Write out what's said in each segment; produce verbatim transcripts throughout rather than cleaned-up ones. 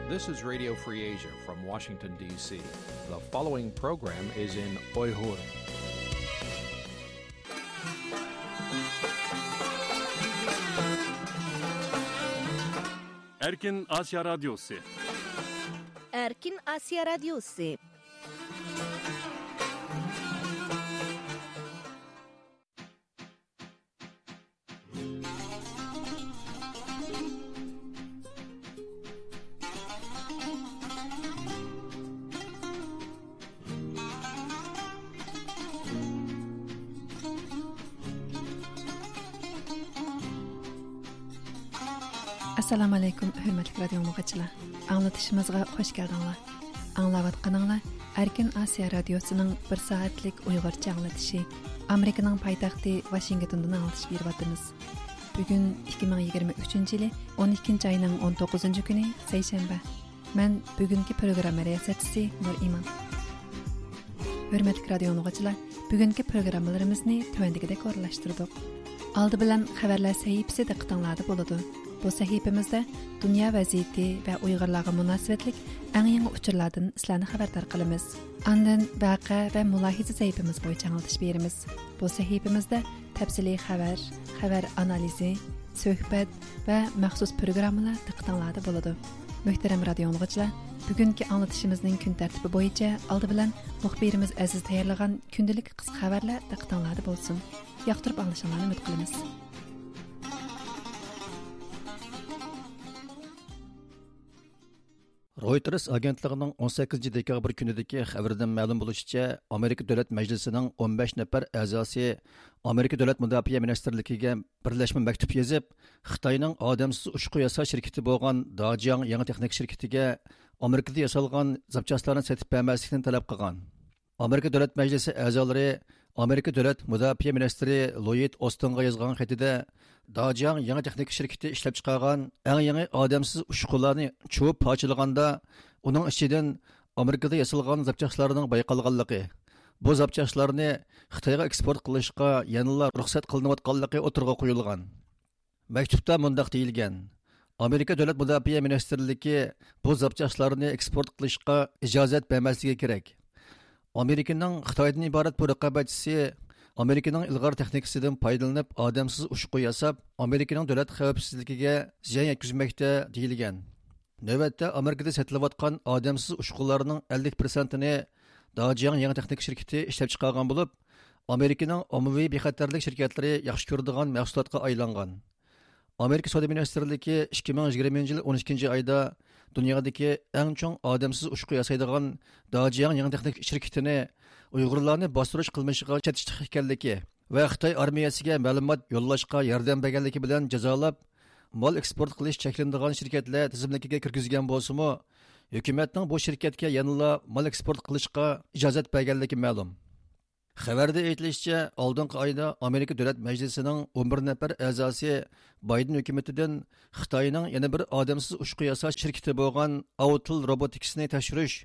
This is Radio Free Asia from Washington, D C. The following program is in Uyghur. Erkin Asya Radyosu. Erkin Asya Radyosu. ئەسسالامۇ ئەلەيكۇم، ھۆرمەتلىك رادىيو ئاڭلىغۇچىلار. ئاڭلىتىشىمىزغا خۇش كەلدىڭلار. ئاڭلاۋاتقىنىڭلار ئەركىن ئاسىيا رادىيوسىنىڭ بىر سائەتلىك ئۇيغۇرچە ئاڭلىتىشى. ئامېرىكىنىڭ پايتەختى ۋاشىنگتوندىن ئاڭلىتىش بېرىۋاتىمىز. بۈگۈن ئىككى مىڭ يىگىرمە ئۈچىنچى يىلى ئون ئىككىنچى ئاينىڭ ئون توققۇزىنچى كۈنى، سەيشەنبە. مەن بۈگۈنكى پروگرامما رىياسەتچىسى نۇرئىمان. ھۆرمەتلىك رادىيو ئاڭلىغۇچىلار، بۈگۈنكى پروگراممىلىرىمىزنى تۆۋەندىكىدەك ئورۇنلاشتۇردۇق. ئالدى بىلەن خەۋەرلەر سەھىپىسى دىققىتىڭلاردا بولىدۇ. بۇ سەھىپىمىزدە دۇنيا ۋەزىيىتى ۋە ئۇيغۇرلارغا مۇناسىۋەتلىك ئەڭ يېڭى ئۇچۇرلاردىن سىلەرنى خەۋەردار قىلىمىز. ئاندىن ۋەقە ۋە مۇلاھىزە سەھىپىمىز بويىچە ئاڭلىتىش بېرىمىز. بۇ سەھىپىمىزدە تەپسىلىي خەۋەر، خەۋەر ئانالىزى، سۆھبەت ۋە مەخسۇس پروگراممىلار دىققىتىڭلاردا بولىدۇ. مۆھتەرەم رادىيو ئاڭلىغۇچىلار، بۈگۈنكى ئاڭلىتىشىمىزنىڭ كۈن تەرتىپى بويىچە ئالدى بىلەن مۇخبىرىمىز ئەزىز تەييارلىغان كۈندىلىك قىسقا خەۋەرلەر دىققىتىڭلاردا بولسۇن. ياقتۇرۇپ ئاڭلىشىڭلارنى ئۈمىد قىلىمىز. رويتېرس ئاگېنتلىقىنىڭ ئون سەككىزىنچى دېكابىر كۈنىدىكى خەۋىرىدىن مەلۇم بولۇشىچە، ئامېرىكا دۆلەت مەجلىسىنىڭ ئون بەش نەپەر ئەزاسى ئامېرىكا دۆلەت مۇداپىئە مىنىستىرلىكىگە بىرلەشمە مەكتۇپ يېزىپ، خىتاينىڭ ئادەمسىز ئۇچقۇ ياساش شىركىتى بولغان داجياڭ يېڭى تېخنىكا شىركىتىگە ئامېرىكىدا ياسالغان زاپچاسلارنى سېتىپ بەرمەسلىكنى تەلەپ قىلغان. ئامېرىكا دۆلەت مەجلىسى ئەزالىرى ئامېرىكا دۆلەت مۇداپىئە مىنىستىرى لويىد ئوستىنغا يازغان خېتىدە، داجياڭ يېڭى تېخنىكا شىركىتى ئىشلەپچىقارغان ئەڭ يېڭى ئادەمسىز ئۇچقۇلارنى چۇۋۇپ پارچىلىغاندا، ئۇنىڭ ئىچىدىن ئامېرىكىدا ياسالغان زاپچاسلارنىڭ بايقالغانلىقى، بۇ زاپچاسلارنى خىتايغا ئېكسپورت قىلىشقا يەنىلا رۇخسەت قىلىنىۋاتقانلىقى ئوتتۇرىغا قويۇلغان. مەكتۇپتا مۇنداق دېيىلگەن: ئامېرىكا دۆلەت مۇداپىئە مىنىستىرلىكى بۇ زاپچاسلارنى ئېكسپورت قىلىشقا ئىجازەت بەرمەسلىكى كېرەك. ئامېرىكىنىڭ خىتايدىن ئىبارەت بۇ رىقابەتچىسى ئامېرىكىنىڭ ئىلغار تېخنىكىسىدىن پايدىلىنىپ، ئادەمسىز ئۇچقۇ ياساپ، ئامېرىكىنىڭ دۆلەت خەۋپسىزلىكىگە زىيان يەتكۈزمەكتە، دېيىلگەن. نۆۋەتتە ئامېرىكىدا سېتىلىۋاتقان ئادەمسىز ئۇچقۇلارنىڭ ئەللىك پىرسەنتىنى داجياڭ يېڭى تېخنىكا شىركىتى ئىشلەپچىقارغان بولۇپ، ئامېرىكىنىڭ ئاممىۋى بىخەتەرلىك شىركەتلىرى ياخشى كۆرىدىغان مەھسۇلاتقا ئايلانغان. ئامېرىكا سودا مىنىستىرلىكى ئىككى مىڭ يىگىرمىنچى يىل ئون ئىككىنچى ئايدا دۇنيادىكى ئەڭ چوڭ ئادەمسىز ئۇچقۇ ياسايدىغان داجياڭ يېڭى تېخنىكا شىركىتىنى ئۇيغۇرلارنى باستۇرۇش قىلمىشىغا چېتىشلىق ئىكەنلىكى ۋە خىتاي ئارمىيەسىگە مەلۇمات يوللاشقا ياردەم بەرگەنلىكى بىلەن جازالاپ، مال ئېكسپورت قىلىش چەكلىنىدىغان شىركەتلەر تىزىملىكىگە كىرگۈزگەن بولسىمۇ، ھۆكۈمەتنىڭ بۇ شىركەتكە يەنىلا مال ئېكسپورت قىلىشقا ئىجازەت بەرگەنلىكى مەلۇم. خەۋەردە ئېيتىلىشىچە، ئالدىنقى ئايدا ئامېرىكا دۆلەت مەجلىسىنىڭ ئون بىر نەپەر ئەزاسى بايدېن ھۆكۈمىتىدىن خىتاينىڭ يەنە بىر ئادەمسىز ئۇچقۇ ياساش شىركىتى بولغان ئاۋتىل روبوتىكسنى تەكشۈرۈش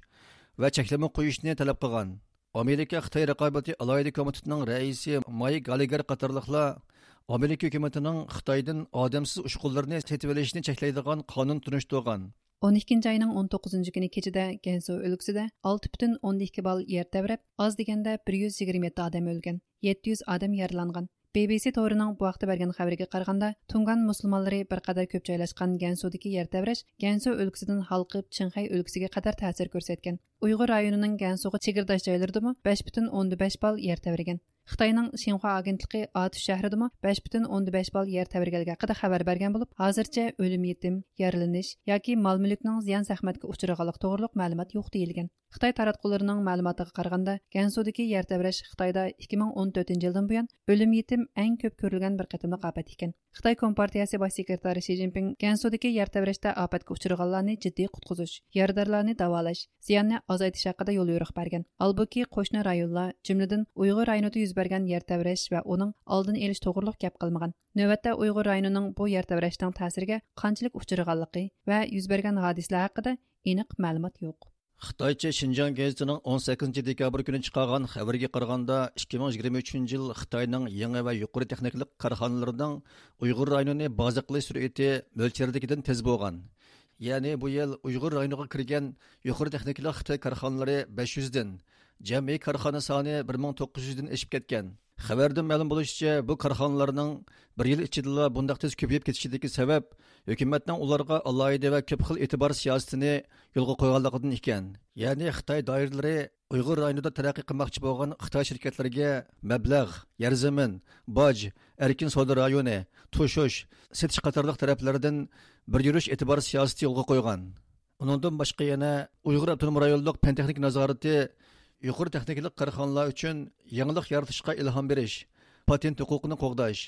ۋە چەكلىمە قويۇشنى تەلەپ قىلغان. ئامېرىكا خىتاي رىقابىتى ئالاھىدە كومىتېتىنىڭ رەئىسى مايك گاللېگېر قاتارلىقلار ئامېرىكا ھۆكۈمىتىنىڭ خىتايدىن ئادەمسىز ئۇچقۇنلىرىنى سېتىۋېلىشنى چەكلەيدىغان قانۇن تونۇشتۇرغان. ئون ئىككىنچى ئاينىڭ ئون توققۇزىنچى كۈنى كېچىدە گەنسۇ ئۆلكىسىدە ئالتە پۈتۈن ئوندىن ئىككى بال يەر تەۋرەپ، ئاز دېگەندە بىر يۈز يىگىرمە يەتتە ئادەم ئۆلگەن، يەتتە يۈز ئادەم يارىلانغان. بى بى سى تورىنىڭ بۇ ھەقتە بەرگەن خەۋىرىگە قارىغاندا، تۇڭگان مۇسۇلمانلىرى بىر قەدەر كۆپ جايلاشقان گەنسۇدىكى يەر تەۋرەش گەنسۇ ئۆلكىسىدىن ھالقىپ، چىڭخەي ئۆلكىسىگە قەدەر تەسىر كۆرسەتكەن. ئۇيغۇر رايونىنىڭ گەنسۇغا چېگرىداش جايلىرىدىمۇ بەش پۈتۈن ئوندىن بەش بال يەر تەۋرىگەن. خىتاينىڭ شىنخۇا ئاگېنتلىقى ئاتۇش شەھىرىدىمۇ بەش پۈتۈن ئوندىن بەش بال يەر تەۋرىگەنلىكى ھەققىدە خەۋەر بەرگەن بولۇپ، ھازىرچە ئۆلۈم يېتىم، يارىلىنىش ياكى مال مۈلۈكنىڭ زىيان زەخمەتكە ئۇچرىغانلىقى توغرۇلۇق مەلۇمات يوق دېيىلگەن. خىتاي تاراتقۇلىرىنىڭ مەلۇماتىغا قارىغاندا، گەنسۇدىكى يەر تەۋرەش خىتايدا ئىككى مىڭ ئون تۆتىنچى يىلدىن بۇيان ئۆلۈم يېتىم ئەڭ كۆپ كۆرۈلگەن بىر قېتىملىق ئاپەت ئىكەن. خىتاي كومپارتىيەسى باش سېكرېتارى شى جىنپىڭ گەنسۇدىكى يەر تەۋرەشتە ئاپەتكە ئۇچرىغانلارنى جىددىي قۇتقۇزۇش، يارىدارلارنى داۋالاش، زىياننى ئازايتىش ھەققىدە يوليورۇق بەرگەن. ھالبۇكى، قوشنا رايونلار، جۈملىدىن ئۇيغۇر رايونىدا يۈز بەرگەن يەر تەۋرەش ۋە ئۇنىڭ ئالدىنى ئېلىش توغرۇلۇق گەپ قىلمىغان. نۆۋەتتە ئۇيغۇر رايونىنىڭ بۇ يەر تەۋرەشنىڭ تەسىرىگە قانچىلىك ئۇچرىغانلىقى ۋە يۈز بەرگەن ھادىسىلەر ھەققىدە ئېنىق مەلۇمات يوق. خىتايچە شىنجاڭ گېزىتىنىڭ ئون سەككىزىنچى دېكابىر كۈنى چىقارغان خەۋىرىگە قارىغاندا، ئىككى مىڭ يىگىرمە ئۈچىنچى يىل خىتاينىڭ يېڭى ۋە يۇقىرى تېخنىكىلىق كارخانىلىرىنىڭ ئۇيغۇر رايونىنى بازا قىلىش سۈرئىتى مۆلچەردىكىدىن تېز بولغان. يەنى بۇ يىل ئۇيغۇر رايونىغا كىرگەن يۇقىرى تېخنىكىلىق خىتاي كارخانىلىرى بەش يۈزدىن، جەمئىي كارخانا سانى بىر مىڭ توققۇز يۈزدىن ئېشىپ كەتكەن. خەۋەردىن مەلۇم بولۇشىچە، بۇ كارخانىلارنىڭ بىر يىل ئىچىدىلا بۇنداق تېز كۆپىيىپ كېتىشىدىكى سەۋەب ھۆكۈمەتنىڭ ئۇلارغا ئالاھىدە ۋە كۆپ خىل ئېتىبار سىياسىتىنى يولغا قويغانلىقىدىن ئىكەن. يەنى خىتاي دائىرىلىرى ئۇيغۇر رايونىدا تەرەققىي قىلماقچى بولغان خىتاي شىركەتلىرىگە مەبلەغ، يەر زېمىن، باج، ئەركىن سودا رايونى، توشۇش، سېتىش قاتارلىق تەرەپلەردىن بىر يۈرۈش ئېتىبار سىياسىتى يولغا قويغان. ئۇنىڭدىن باشقا يەنە ئۇيغۇر ئاپتونوم رايونلۇق پەن تېخنىكا نازارىتى يۇقىرى تېخنىكىلىق كارخانىلار ئۈچۈن يېڭىلىق يارىتىشقا ئىلھام بېرىش، پاتېنت ھوقۇقىنى قوغداش،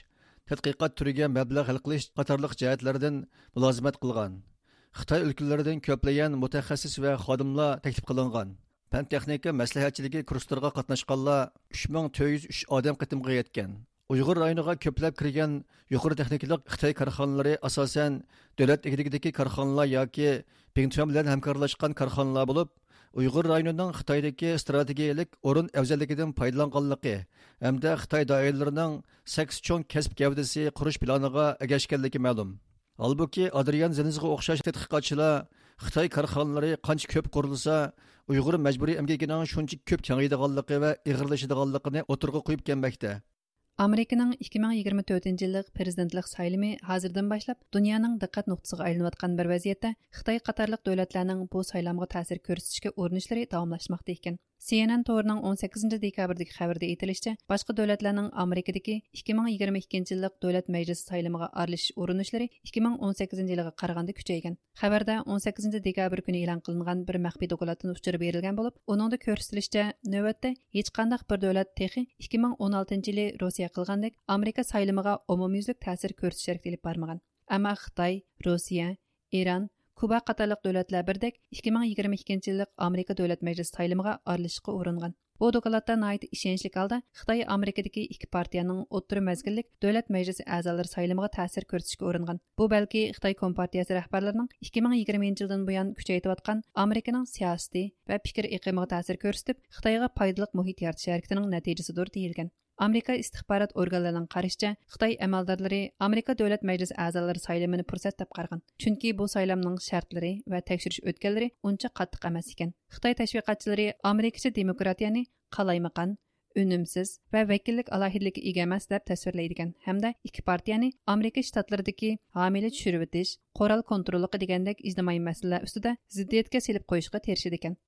تەتقىقات تۈرىگە مەبلەغ ھەل قىلىش قاتارلىق جەھەتلەردىن مۇلازىمەت قىلغان. خىتاي ئۆلكىلىرىدىن كۆپلىگەن مۇتەخەسسىس ۋە خادىملار تەكلىپ قىلىنغان. پەن تېخنىكا مەسلىھەتچىلىكى كۇرسلىرىغا قاتناشقانلار ئۈچ مىڭ تۆت يۈز ئۈچ ئادەم قېتىمغا يەتكەن. ئۇيغۇر رايونىغا كۆپلەپ كىرگەن يۇقىرى تېخنىكىلىق خىتاي كارخانىلىرى ئاساسەن دۆلەت ئىگىلىكىدىكى كارخانىلار ياكى بىڭتۈەن بىلەن ھەمكارلاشقان كارخانىلار بولۇپ، ئۇيغۇر رايونىنىڭ خىتايدىكى ئىستراتېگىيەلىك ئورۇن ئەۋزەللىكىدىن پايدىلانغانلىقى ھەمدە خىتاي دائىرىلىرىنىڭ سەككىز چوڭ كەسىپ گەۋدىسى قۇرۇش پىلانىغا ئەگەشكەنلىكى مەلۇم. ھالبۇكى، ئادرىيان زېنزغا ئوخشاش تەتقىقاتچىلار خىتاي كارخانىلىرى قانچە كۆپ قۇرۇلسا، ئۇيغۇر مەجبۇرىي ئەمگىكىنىڭ شۇنچە كۆپ كېڭىيىدىغانلىقى ۋە ئېغىرلىشىدىغانلىقىنى ئوتتۇرىغا قويۇپ كەلمەكتە. ئامېرىكىنىڭ ئىككى مىڭ يىگىرمە تۆتىنچى يىللىق پىرېزىدېنتلىق سايلىمى ھازىردىن باشلاپ دۇنيانىڭ دىققەت نۇقتىسىغا ئايلىنىۋاتقان بىر ۋەزىيەتتە، خىتاي قاتارلىق دۆلەتلەرنىڭ بۇ سايلامغا تەسىر كۆرسىتىشكە ئۇرۇنۇشلىرى داۋاملاشماقتا ئىكەن. سى ئېن ئېن تورىنىڭ ئون سەككىزىنچى دېكابىردىكى خەۋىرىدە ئېيتىلىشىچە، باشقا دۆلەتلەرنىڭ ئامېرىكىدىكى ئىككى مىڭ يىگىرمە ئىككىنچى يىللىق دۆلەت مەجلىسى سايلىمىغا ئارىلىشىش ئۇرۇنۇشلىرى ئىككى مىڭ ئون سەككىزىنچى يىلىغا قارىغاندا كۈچەيگەن. خەۋەردە ئون سەككىزىنچى دېكابىر كۈنى ئېلان قىلىنغان بىر مەخپىي دوكلاتتىن ئۇچۇر بېرىلگەن بولۇپ، ئۇنىڭدا كۆرسىتىلىشىچە، نۆۋەتتە ھېچقانداق بىر دۆلەت تېخى ئىككى مىڭ ئون ئالتىنچى يىلى روسىيە قىلغاندەك ئامېرىكا سايلىمىغا ئومۇميۈزلۈك تەسىر كۆرسىتىش ھەرىكىتى ئېلىپ بارمىغان. ئەمما خىتاي، روسىيە، ئىران، كۇبا قاتارلىق دۆلەتلەر بىردەك ئىككى مىڭ يىگىرمە ئىككىنچى يىللىق ئامېرىكا دۆلەت مەجلىسى سايلىمىغا ئارىلىشىشقا ئۇرۇنغان. بۇ دوكلاتتا ناھايىتى ئىشەنچلىك ھالدا خىتاي ئامېرىكىدىكى ئىككى پارتىيەنىڭ ئوتتۇرا مەزگىللىك دۆلەت مەجلىسى ئەزالىرى سايلىمىغا تەسىر كۆرسىتىشكە ئۇرۇنغان. بۇ بەلكى خىتاي كومپارتىيەسى رەھبەرلىرىنىڭ ئىككى مىڭ يىگىرمىنچى يىلدىن بۇيان كۈچەيتىۋاتقان ئامېرىكىنىڭ سىياسىتى ۋە پىكىر ئېقىمىغا تەسىر كۆرسىتىپ، خىتايغا پايدىلىق مۇھىت يارىتىش ھەرىكىتىنىڭ نەتىجىسىدۇر دېيىلگەن. ئامېرىكا ئىستىخبارات ئورگانلىرىنىڭ قارىشىچە، خىتاي ئەمەلدارلىرى ئامېرىكا دۆلەت مەجلىسى ئەزالىرى سايلىمىنى پۇرسەت دەپ قارىغان. چۈنكى بۇ سايلامنىڭ شەرتلىرى ۋە تەكشۈرۈش ئۆتكەللىرى ئۇنچە قاتتىق ئەمەس ئىكەن. خىتاي تەشۋىقاتچىلىرى ئامېرىكىچە دېموكراتىيەنى قالايمىقان، ئۈنۈمسىز ۋە ۋەكىللىك ئالاھىدىلىككە ئىگە ئەمەس دەپ تەسۋىرلەيدىكەن ھەمدە ئىككى پارتىيەنى ئامېرىكا شتاتلىرىدىكى ھامىيلە چۈشۈرۈۋېتىش، قورال كونتروللۇقى دېگەندەك ئىجتىمائىي مەسىلىلەر ئۈستىدە زىددىيەتكە سېلىپ قويۇشقا تىرىشىدىكەن.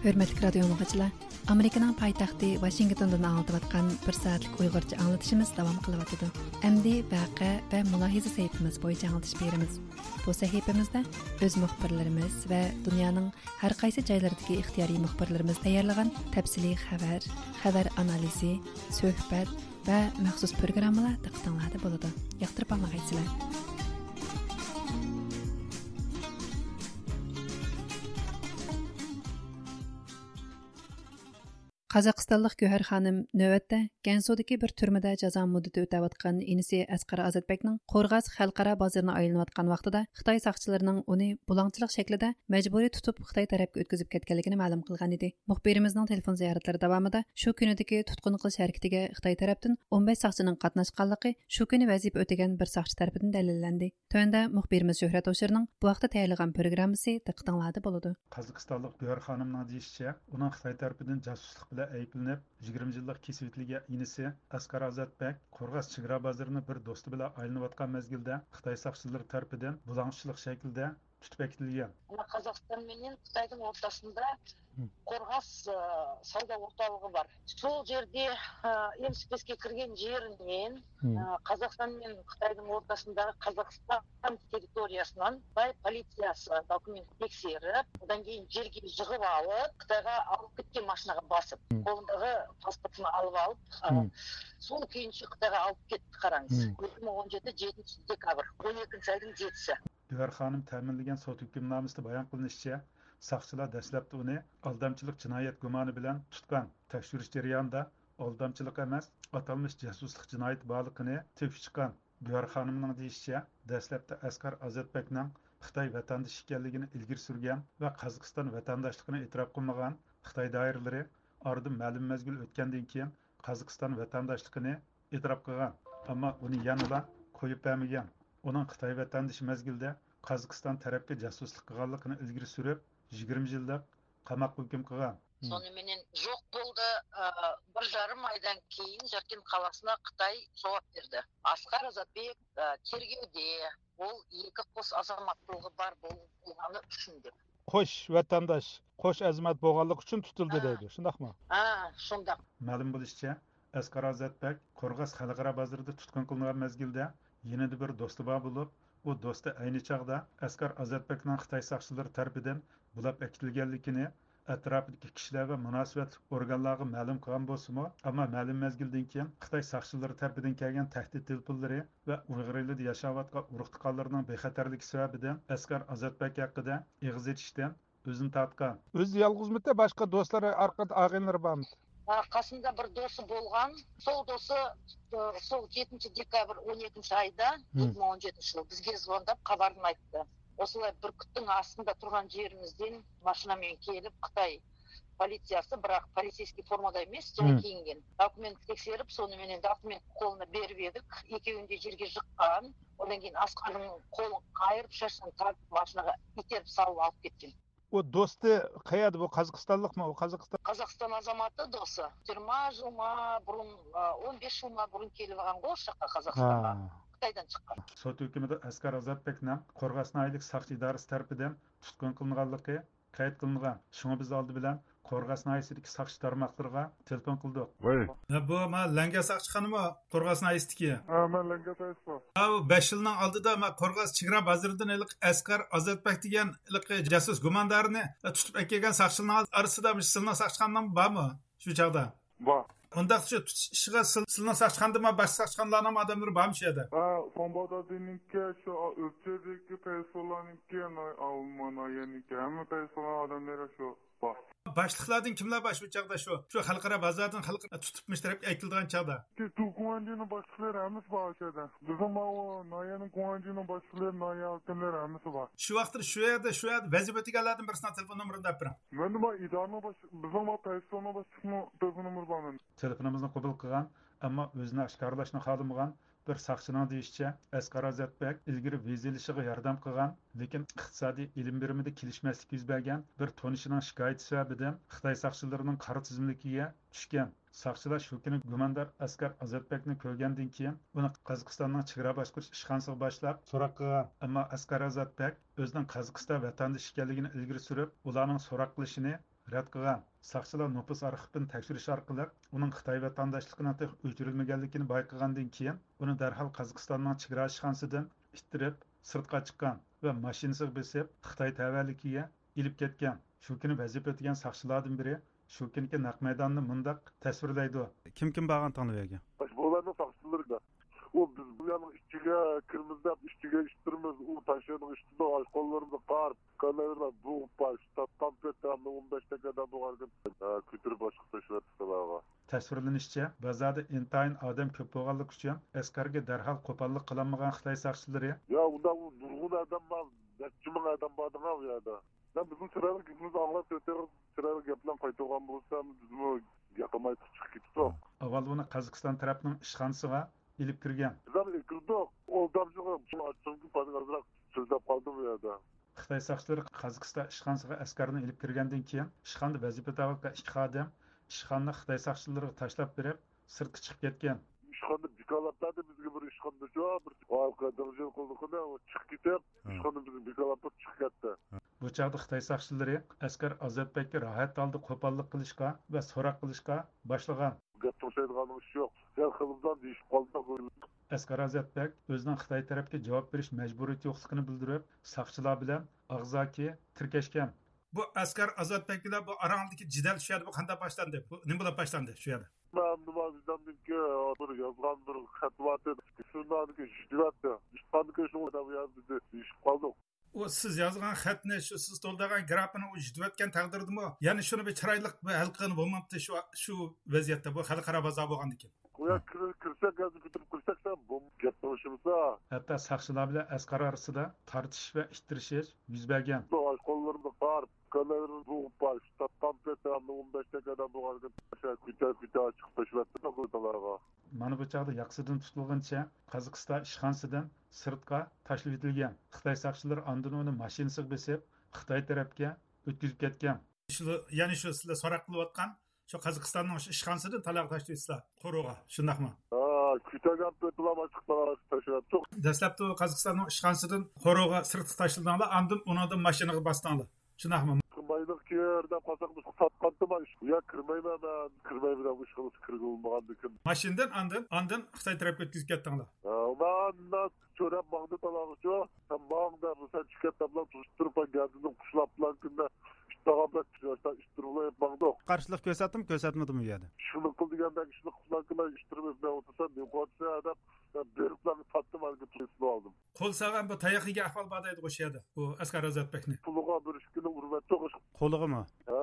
ھۆرمەتلىك رادىيو ئاڭلىغۇچىلار، ئامېرىكىنىڭ پايتەختى ۋاشىنگتوندىن ئاڭلىتىۋاتقان بىر سائەتلىك ئۇيغۇرچە ئاڭلىتىشىمىز داۋام قىلىۋاتىدۇ. ئەمدى ۋەقە ۋە مۇلاھىزە سەھىپىمىز بويىچە ئاڭلىتىش بېرىمىز. بۇ سەھىپىمىزدە ئۆز مۇخبىرلىرىمىز ۋە دۇنيانىڭ ھەر قايسى جايلىرىدىكى ئىختىيارىي مۇخبىرلىرىمىز تەييارلىغان تەپسىلىي خەۋەر، خەۋەر ئانالىزى، سۆھبەت ۋە مەخسۇس پروگراممىلار دىققىتىڭلاردا بولىدۇ. ياقتۇرۇپ ئاڭلىغايسىلەر. قازاقىستانلىق گۆھەر خانىم نۆۋەتتە گەنسۇدىكى بىر تۈرمىدە جازا مۇددىتى ئۆتەۋاتقان ئىنىسى ئەسقەر ئازاتبەكنىڭ قورغاس خەلقئارا بازىرىنى ئايلىنىۋاتقان ۋاقتىدا خىتاي ساقچىلىرىنىڭ ئۇنى بۇلاڭچىلىق شەكلىدە مەجبۇرىي تۇتۇپ، خىتاي تەرەپكە ئۆتكۈزۈپ كەتكەنلىكىنى مەلۇم قىلغان ئىدى. مۇخبىرىمىزنىڭ تېلېفون زىيارەتلىرى داۋامىدا شۇ كۈنىدىكى تۇتقۇن قىلىش ھەرىكىتىگە خىتاي تەرەپتىن ئون بەش ساقچىنىڭ قاتناشقانلىقى شۇ كۈنى ۋەزىپە ئۆتىگەن بىر ساقچى تەرىپىدىن دەلىللەندى. تۆۋەندە مۇخبىرىمىز شۆھرەت ھوشۇرنىڭ بۇ ھەقتە تەييارلىغان پروگراممىسى دىققىتىڭلاردا بولىدۇ. قازاقىستانلىق گۆھەر خانىمنىڭ دېيىشىچە، ئۇنىڭ خىتاي تەرىپىدىن جاسۇسلۇق بىلەن ئەيىبلىنىپ، يىگىرمە يىللىق كېسىۋېتىلگەن ئىنىسى ئەسقەر ئازاتبەك قورغاس چېگرا بازىرىنى بىر دوستى بىلەن ئايلىنىۋاتقان مەزگىلدە خىتاي ساقچىلىرى تەرىپىدىن بۇلاڭچىلىق شەكلىدە تۇتۇپ ئەكېتىلگەن. مانا، قازاقىستان مەن خىتاينىڭ ئورتاسىندا، ھىم. قورغاس، ئە، ساۋدا ئورتالىقى بار. شۇ يەردە، ئە، ئېمسىپىسكە كىرگەن يېرىدىن، ھىم. ئە، قازاقىستان مەن خىتاينىڭ ئورتاسىندا قازاقىستان تېررىتورىيەسىنىڭ خىتاي پولىتسىيەسى دوكۇمېنت تەكشۈرۈپ، ئۇندىن كېيىن يەرگە يىغىپ ئېلىپ، خىتايغا ئېلىپ كەتكەن ماشىنىغا باسىپ، ھىم. قولىدىكى پاسپورتىنى ئېلىپ ئېلىپ، ئە، ھىم. سول كېيىنچە خىتايغا ئېلىپ كەتتى، قاراڭ. ھىم. ئىككى مىڭ ئون يەتتە يەتتىنچى دېكابىر، ئون يەتتىنچى ئاينىڭ يەتتىسى. گۆھەر خانىم تەمىنلىگەن سوت ھۆكۈمنامىسىدە بايان قىلىنىشىچە، ساقچىلار دەسلەپتە ئۇنى ئالدامچىلىق جىنايەت گۇمانى بىلەن تۇتقان. تەكشۈرۈش جەريانىدا ئالدامچىلىق ئەمەس، ئاتالمىش جاسۇسلۇق جىنايىتى بارلىقىنى تېپىپ چىققان. گۆھەر خانىمنىڭ دېيىشىچە، دەسلەپتە ئەسقەر ئازاتبەكنىڭ خىتاي ۋەتەندىشى ئىكەنلىكىنى ئىلگىرى سۈرگەن ۋە قازاقىستان ۋەتەنداشلىقىنى ئېتىراپ قىلمىغان خىتاي دائىرىلىرى ئارىدىن مەلۇم مەزگىل ئۆتكەندىن كېيىن قازاقىستان ۋەتەنداشلىقىنى ئېتىراپ قىلغان. ئەمما ئۇنى يەنىلا قويۇپ بەرمىگەن. ئۇنىڭ خىتاي ۋەتەندىشى مەزگىلدە قازاقىستان تەرەپكە جاسۇسلۇق قىلغانلىقىنى ئىلگىرى سۈرۈپ، يىگىرمە يىللىق قاماققا ھۆكۈم قىلغان. Сонымен жоқ болды. Ә, бір жарым айдан кейін Жаркент қаласына Қытай жауап берді. Асқар Азатбек, ә, тергеуде, ол екі қос азаматтылығы бар бол-, болғаны үшін деп. قوش ۋەتەنداش، قوش ئەزىمەت بولغانلىقى ئۈچۈن تۇتۇلدى دەيدۇ، شۇنداقمۇ؟ ھە، شۇنداق. مەلۇم بولۇشىچە، ئەسقەر ئازاتبەك قورغاس خەلقئارا بازىرىدا تۇتقۇن قىلىنغان مەزگىلدە يېنىدا بىر دوستى بار بولۇپ، ئۇ دوستى ئەينى چاغدا ئەسقەر ئازاتبەكنىڭ خىتاي ساقچىلىرى تەرىپىدىن بۇلاپ ئەكېتىلگەنلىكىنى، ئەتراپىدىكى كىشىلەر ۋە مۇناسىۋەتلىك ئورگانلارغا مەلۇم قىلغان بولسىمۇ، ئەمما مەلۇم مەزگىلدىن كېيىن خىتاي ساقچىلىرى تەرىپىدىن كەلگەن تەھدىت تېلېفونلىرى ۋە ئۇيغۇر ئېلىدا ياشاۋاتقان ئۇرۇق-تۇغقانلىرىنىڭ بىخەتەرلىكى سەۋەبىدىن ئەسقەر ئازاتبەك ھەققىدە ئېغىز ئېچىشتىن ئۆزىنى تارتقان. ئۆزى يالغۇزمىتى، باشقا دوستلىرى، ئارقا-، ئاغىنىلىرى بارمىدى؟ ھە، قاسىمدا بىر دوستى بولغان. سول دوستى، ئە، سول يەتتىنچى دېكابىر ئون يەتتىنچى ئايدا، مم. ئىككى مىڭ ئون يەتتىنچى يىل بىزگە زۋونداپ خەۋەرنى ئېيتتى. ئاشۇنداق بىر كۈتتىڭ ئاستىدا تۇرغان يېرىمىزدىن ماشىنا بىلەن كېلىپ، خىتاي پولىتسىيەسى، بىراق پولىتسىيەسكىي فورمىدا ئەمەس، جاي كىيىنگەن. دوكۇمېنت تەكشۈرۈپ، سونى مېنى دوكۇمېنت قولىنا بېرىپ ئېدىق. ئېكەۋىنى يەرگە يىققان. ئۇندىن كېيىن ئەسقەرنىڭ قولىنى قايرىپ، شاشىنى تارتىپ، ماشىنىغا ئىتتىرىپ سالىپ ئېلىپ كەتكەن. ئۇ دوستى قەيەردە؟ بۇ قازاقىستانلىقمۇ؟ ئۇ قازاقىستان. قازاقىستان ئازاماتى دوستى. يىگىرمە يىلغا بۇرۇن، ئون بەش يىلغا بۇرۇن كېلىۋالغانغۇ ئۇ ياققا، قازاقىستانغا. ھە. خىتايدىن چىققان. سوت ھۆكمىدە ئەسقەر ئازاتبەكنىڭ قورغاس ناھىيەلىك ساقچى ئىدارىسى تەرىپىدىن تۇتقۇن قىلىنغانلىقى قەيت قىلىنغان. شۇڭا بىز ئالدى بىلەن قورغاس ناھىيەسىدىكى ساقچى تارماقلىرىغا تېلېفون قىلدۇق. ۋاي. ھە، بۇ ما لەڭگە ساقچىخانىمۇ قورغاس ناھىيەسىدىكى؟ ھە، مەن لەڭگە ساقچىسى. ھە، بۇ بەش يىلنىڭ ئالدىدا ما قورغاس چېگرا بازىرىدىن ھېلىقى ئەسقەر ئازاتبەك دېگەن ھېلىقى جاسۇس گۇماندارنى تۇتۇپ ئەكەلگەن ساقچىلارنىڭ ئارىسىدا مۇشۇ سىلىنىڭ ساقچىخانىنىڭ بارمۇ شۇ چاغدا؟ بار. ئۇنداقتا شۇ تۇتۇش ئىشىغا سىل-، سىلىنىڭ ساقچىخانىدىمۇ، باشقا ساقچىخانىلارنىڭ ئادەملىرى بارمۇ شۇ يەردە؟ ھە، سوڭبادادىنىڭكى، شۇ ئۆلچەيدىكى پەيسۇللانىڭكى، ناي-، ئالما ناھىيەنىڭكى، ھەممە پەيسۇللان ئادەملىرى شۇ بار. باشلىقلاردىن كىملەر بار شۇ چاغدا، شۇ، شۇ خەلقئارا بازاردىن خەلق تۇتۇپ مۇشۇ تەرەپكە ئەكېلىدىغان چاغدا؟ شۇ گۇاڭجىنىڭ باشلىقلىرى ھەممىسى بار شۇ يەردە. بىزنىڭ ماۋۇ ناھىيەنىڭ گۇاڭجىنىڭ باشلىقلىرى، ناھىيە ھاكىملىرى ھەممىسى بار. شۇ ۋاقىتتا شۇ يەردە، شۇ يەردە ۋەزىپە ئۆتىگەنلەردىن بىرسىنىڭ تېلېفون نومۇرىنى دەپ بېرىڭ. مەندە بار ئىدارىنىڭ باش-، بىزنىڭ بار پەيسۇلنىڭ باشلىقىنىڭ تېلېفون نومۇرى بار مەندە. تېلېفونىمىزنى قوبۇل قىلغان، ئەمما ئۆزىنى ئاشكارىلاشنى خالىمىغان بىر ساقچىنىڭ دېيىشىچە، ئەسقەر ئازاتبەك ئىلگىرى ۋىزا ئېلىشىغا ياردەم قىلغان، لېكىن ئىقتىسادىي ئېلىم بېرىمىدە كېلىشمەسلىك يۈز بەرگەن بىر تونۇشىنىڭ شىكايىتى سەۋەبىدىن خىتاي ساقچىلىرىنىڭ قارا تىزىملىكىگە چۈشكەن. ساقچىلار شۇ كۈنى گۇماندار ئەسقەر ئازاتبەكنى كۆرگەندىن كېيىن، ئۇنى قازاقىستاننىڭ چېگرا باشقۇرۇش ئىشخانىسىغا باشلاپ سوراق قىلغان. ئەمما ئەسقەر ئازاتبەك ئۆزىنىڭ قازاقىستان ۋەتەندىشى ئىكەنلىكىنى ئىلگىرى سۈرۈپ، ئۇلارنىڭ سوراق قىلىشىنى رەت قىلغان. ساقچىلار نوپۇس ئارخىپىنى تەكشۈرۈش ئارقىلىق ئۇنىڭ خىتاي ۋەتەنداشلىقىنىڭ تېخى ئۆچۈرۈلمىگەنلىكىنى بايقىغاندىن كېيىن، ئۇنى دەرھال قازاقىستاننىڭ چېگرا ئىشخانىسىدىن ئىتتىرىپ، سىرتقا چىققان ۋە ماشىنىسىغا بېسىپ، خىتاي تەۋەلىكىگە ئېلىپ كەتكەن. شۇ كۈنى ۋەزىپە ئۆتىگەن ساقچىلاردىن بىرى شۇ كۈنكى نەق مەيداننى مۇنداق تەسۋىرلەيدۇ. كىم كىم بارغان تەڭلا ئۇ يەرگە؟ بۇلارنىڭ ساقچىلىرى. ئۇ بىز بۇ يەرنىڭ ئىچىگە كىرىمىز دەپ، ئىچىگە ئىتتىرىمىز، ئۇ تاشيولنىڭ ئۈستىدە قوللىرىمىزغا قار، كاللىلىرىمىزغا بۇغۇپ، تارتقان پېتى ئون بەش دەقىقە بولغانىكەن، كۆتۈرۈپ باشقا تاشلاپ سىلەرگە. تەسۋىرلىنىشىچە، بازاردا ئىنتايىن ئادەم كۆپ بولغانلىقى ئۈچۈن، ئەسقەرگە دەرھال قوپاللىق قىلالمىغان خىتاي ساقچىلىرى. يا، ئۇنداق ئۇ نۇرغۇن ئادەم بار، نەچچە مىڭ ئادەم باردىڭ ئۇ يەردە. يا، بىزنىڭ چىرايلىق گېپىمىزنى ئاڭلاپ، چىرايلىق گەپ بىلەن قايتۇرغان بولسا، بىزمۇ ياقماي چىقىپ كېتىدۇق. ئاۋۋال ئۇنى قازاقىستان تەرەپنىڭ ئىشخانىسىغا ئېلىپ كىرگەن. بىز ھەم ئەكىردۇق. ئۇ ئادەمچۇ ئاچچىقتىن ئازراق سۆزلەپ قالدى بۇ يەردە. خىتاي ساقچىلىرى قازاقىستان ئىشخانىسىغا ئەسقەرنى ئېلىپ كىرگەندىن كېيىن، ئىشخانىدا ۋەزىپىدە بولغان ئىككى خادىم ئىشخانىنى خىتاي ساقچىلىرىغا تاشلاپ بېرىپ، سىرتقا چىقىپ كەتكەن. ئىشخانىدا بىكارلاپ بەردى بىزگە بىر ئىشخانىدىچۇ، بىر ھالقا دىڭجىڭ قىلدى، ئۇ چىقىپ كېتىپ، ئىشخانىدىن بىزنى بىكارلاپ تۇرۇپ چىقىپ كەتتى. بۇ چاغدا خىتاي ساقچىلىرى ئەسقەر ئازاتبەككە راھەت ھالدا قوپاللىق قىلىشقا ۋە سوراق قىلىشقا باشلىغان. گەپ توشايدىغان ئىش يوق. يا خېلى بىلەن دېيىشىپ قالدۇق. ئەسقەر ئازاتبەك ئۆزىنىڭ خىتاي تەرەپكە جاۋاب بېرىش مەجبۇرىيىتى يوقلۇقىنى بىلدۈرۈپ، ساقچىلار بىلەن ئاغزاكى تىركەشكەن. بۇ ئەسقەر ئازاتبەك بىلەن بۇ ئاراڭدىكى جېدەل شۇ يەردە بۇ قانداق باشلاندى؟ بۇ نېمە بولۇپ باشلاندى شۇ يەردە؟ مەن نېمە، بىزدىكى بىر يازغان بىر خەت بار ئىدى. شۇنداقتىكى يۈدۈۋەتتى. ئىشقاندىكى شۇ بۇ يەردە دېيىشىپ قالدۇق. ئۇ سىز يازغان خەتنى، شۇ سىز تولدۇرغان گرافىنى ئۇ يۈدۈۋەتكەن تەقدىردىمۇ، يەنە شۇنى بىر چىرايلىق بىر ھەل قىلغىلى بولمامتى شۇ، شۇ ۋەزىيەتتە، بۇ خەلقئارا بازار بولغاندىكىن؟ ئۇ يەرگە كىر-، كىرسەك، ھازىر كۆتۈرۈپ كىرسەك، سەن بۇ گەپ قىلىشىمىزدا. ھەتتا ساقچىلار بىلەن ئەسقەر ئارىسىدا تارتىشىش ۋە ئىتتىرىشىش يۈز بەرگەن. ئاشۇ قوللىرىمدا بار، ئۇكىلىرىمنى بوغۇپ بار، شۇ تاپقان پېتى ئون بەش دەقىقە ئادەم بولغاندىكىن، كۆتە-كۆتە چىقىپ تاشلاپتۇ ئۇكىلارغا. مانا بۇ چاغدا ياقىسىدىن تۇتۇلغىنىچە قازاقىستان ئىشخانىسىدىن سىرتقا تاشلىۋېتىلگەن. خىتاي ساقچىلىرى ئاندىن ئۇنى ماشىنىسىغا بېسىپ، خىتاي تەرەپكە ئۆتكۈزۈپ كەتكەن. شۇ، يەنى شۇ سىلەر سوراق قىلىۋاتقان شۇ قازاقىستاننىڭ شۇ ئىشخانىسىدىن تالاغا تاشلىۋېتىسىلەر قورۇغا، شۇنداقمۇ؟ ھا، كۆتەرگەن پېتىلا باشلىق تالاغا تاشلاپتۇ. دەسلەپتە قازاقىستاننىڭ ئىشخانىسىدىن قورۇغا سىرتقا تاشلىدىڭلار، ئاندىن ئۇنىڭدىن ماشىنىغا باستىڭلار، شۇنداقمۇ؟ مايلىق كىر دەپ قالساق، بىز ساتقانتىما، ئۇ يەرگە كىرمەيمەن مەن، كىرمەيمەن دەپ، ئىشخانىسىغا كىرگىلى بولمىغاندىكىن. ماشىنىدىن ئاندىن، ئاندىن خىتاي تەرەپكە ئۆتكۈزۈپ كەتتىڭلار؟ ھا، مەن چۆرەپ ماڭدى تالاغىچۇ. سەن ماڭ دەپ، سەن چىقىپ كەت دەپلا تۇتۇپ تۇرۇپ، مەن گەدىنىم قۇشلاپ بىلەن كۈندە ئىتتىغان بىلەن ئىتتىرىپ ماڭدۇق. قارشىلىق كۆرسەتتىمۇ، كۆرسەتمىدىمۇ ئۇ يەردە؟ شۇنى قىل دېگەندەك ئىشنى قىلساڭ، مەن ئىتتىرىپ ئۆتمەي ئولتۇرسام، نېمە قىلىۋاتىسەن دەپ، مەن بېرىپلا تارتتىم، ھازىر تۇتۇپ ئالدىم. قول سالغان بۇ تاياق يېگەن ئەھۋال بار دەيدىغۇ شۇ يەردە، بۇ ئەسقەر ئازاتبەكنى. قولىغا بىر ئىككىنى ئۇرۇۋەتتۇق. قولىغىمۇ؟ ھە،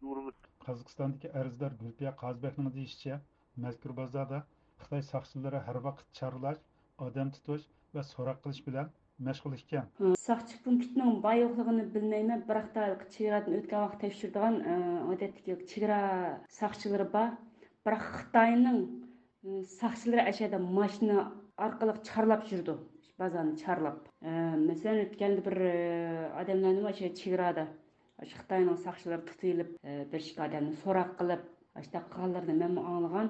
ئۇرۇۋەتتۇق. قازاقىستاندىكى ئەرزدار گۈلپىيە قازىبەكنىڭ دېيىشىچە، مەزكۇر بازاردا خىتاي ساقچىلىرى ھەر ۋاقىت چارلاش، ئادەم تۇتۇش ۋە سوراق قىلىش بىلەن مەشغۇل ئىكەن. ساقچى پونكىتىنىڭ بار يوقلۇقىنى بىلمەيمەن، بىراق، چېگرادىن ئۆتكەن ۋاقىت تەكشۈرىدىغان، ئادەتتىكى چېگرا ساقچىلىرى بار. بىراق، خىتاينىڭ ساقچىلىرى ئەشەدە ماشىنا ئارقىلىق چارلاپ يۈرىدۇ، بازارنى چارلاپ. مەسىلەن، ئۆتكەندە بىر ئادەملەرنى ئاشۇ چېگرادا، ئاشۇ خىتاينىڭ ساقچىلىرى تۇتۇۋېلىپ، بىر ئىككى ئادەمنى سوراق قىلىپ، ئاشۇنداق قىلغانلىرىنى مەنمۇ ئاڭلىغان.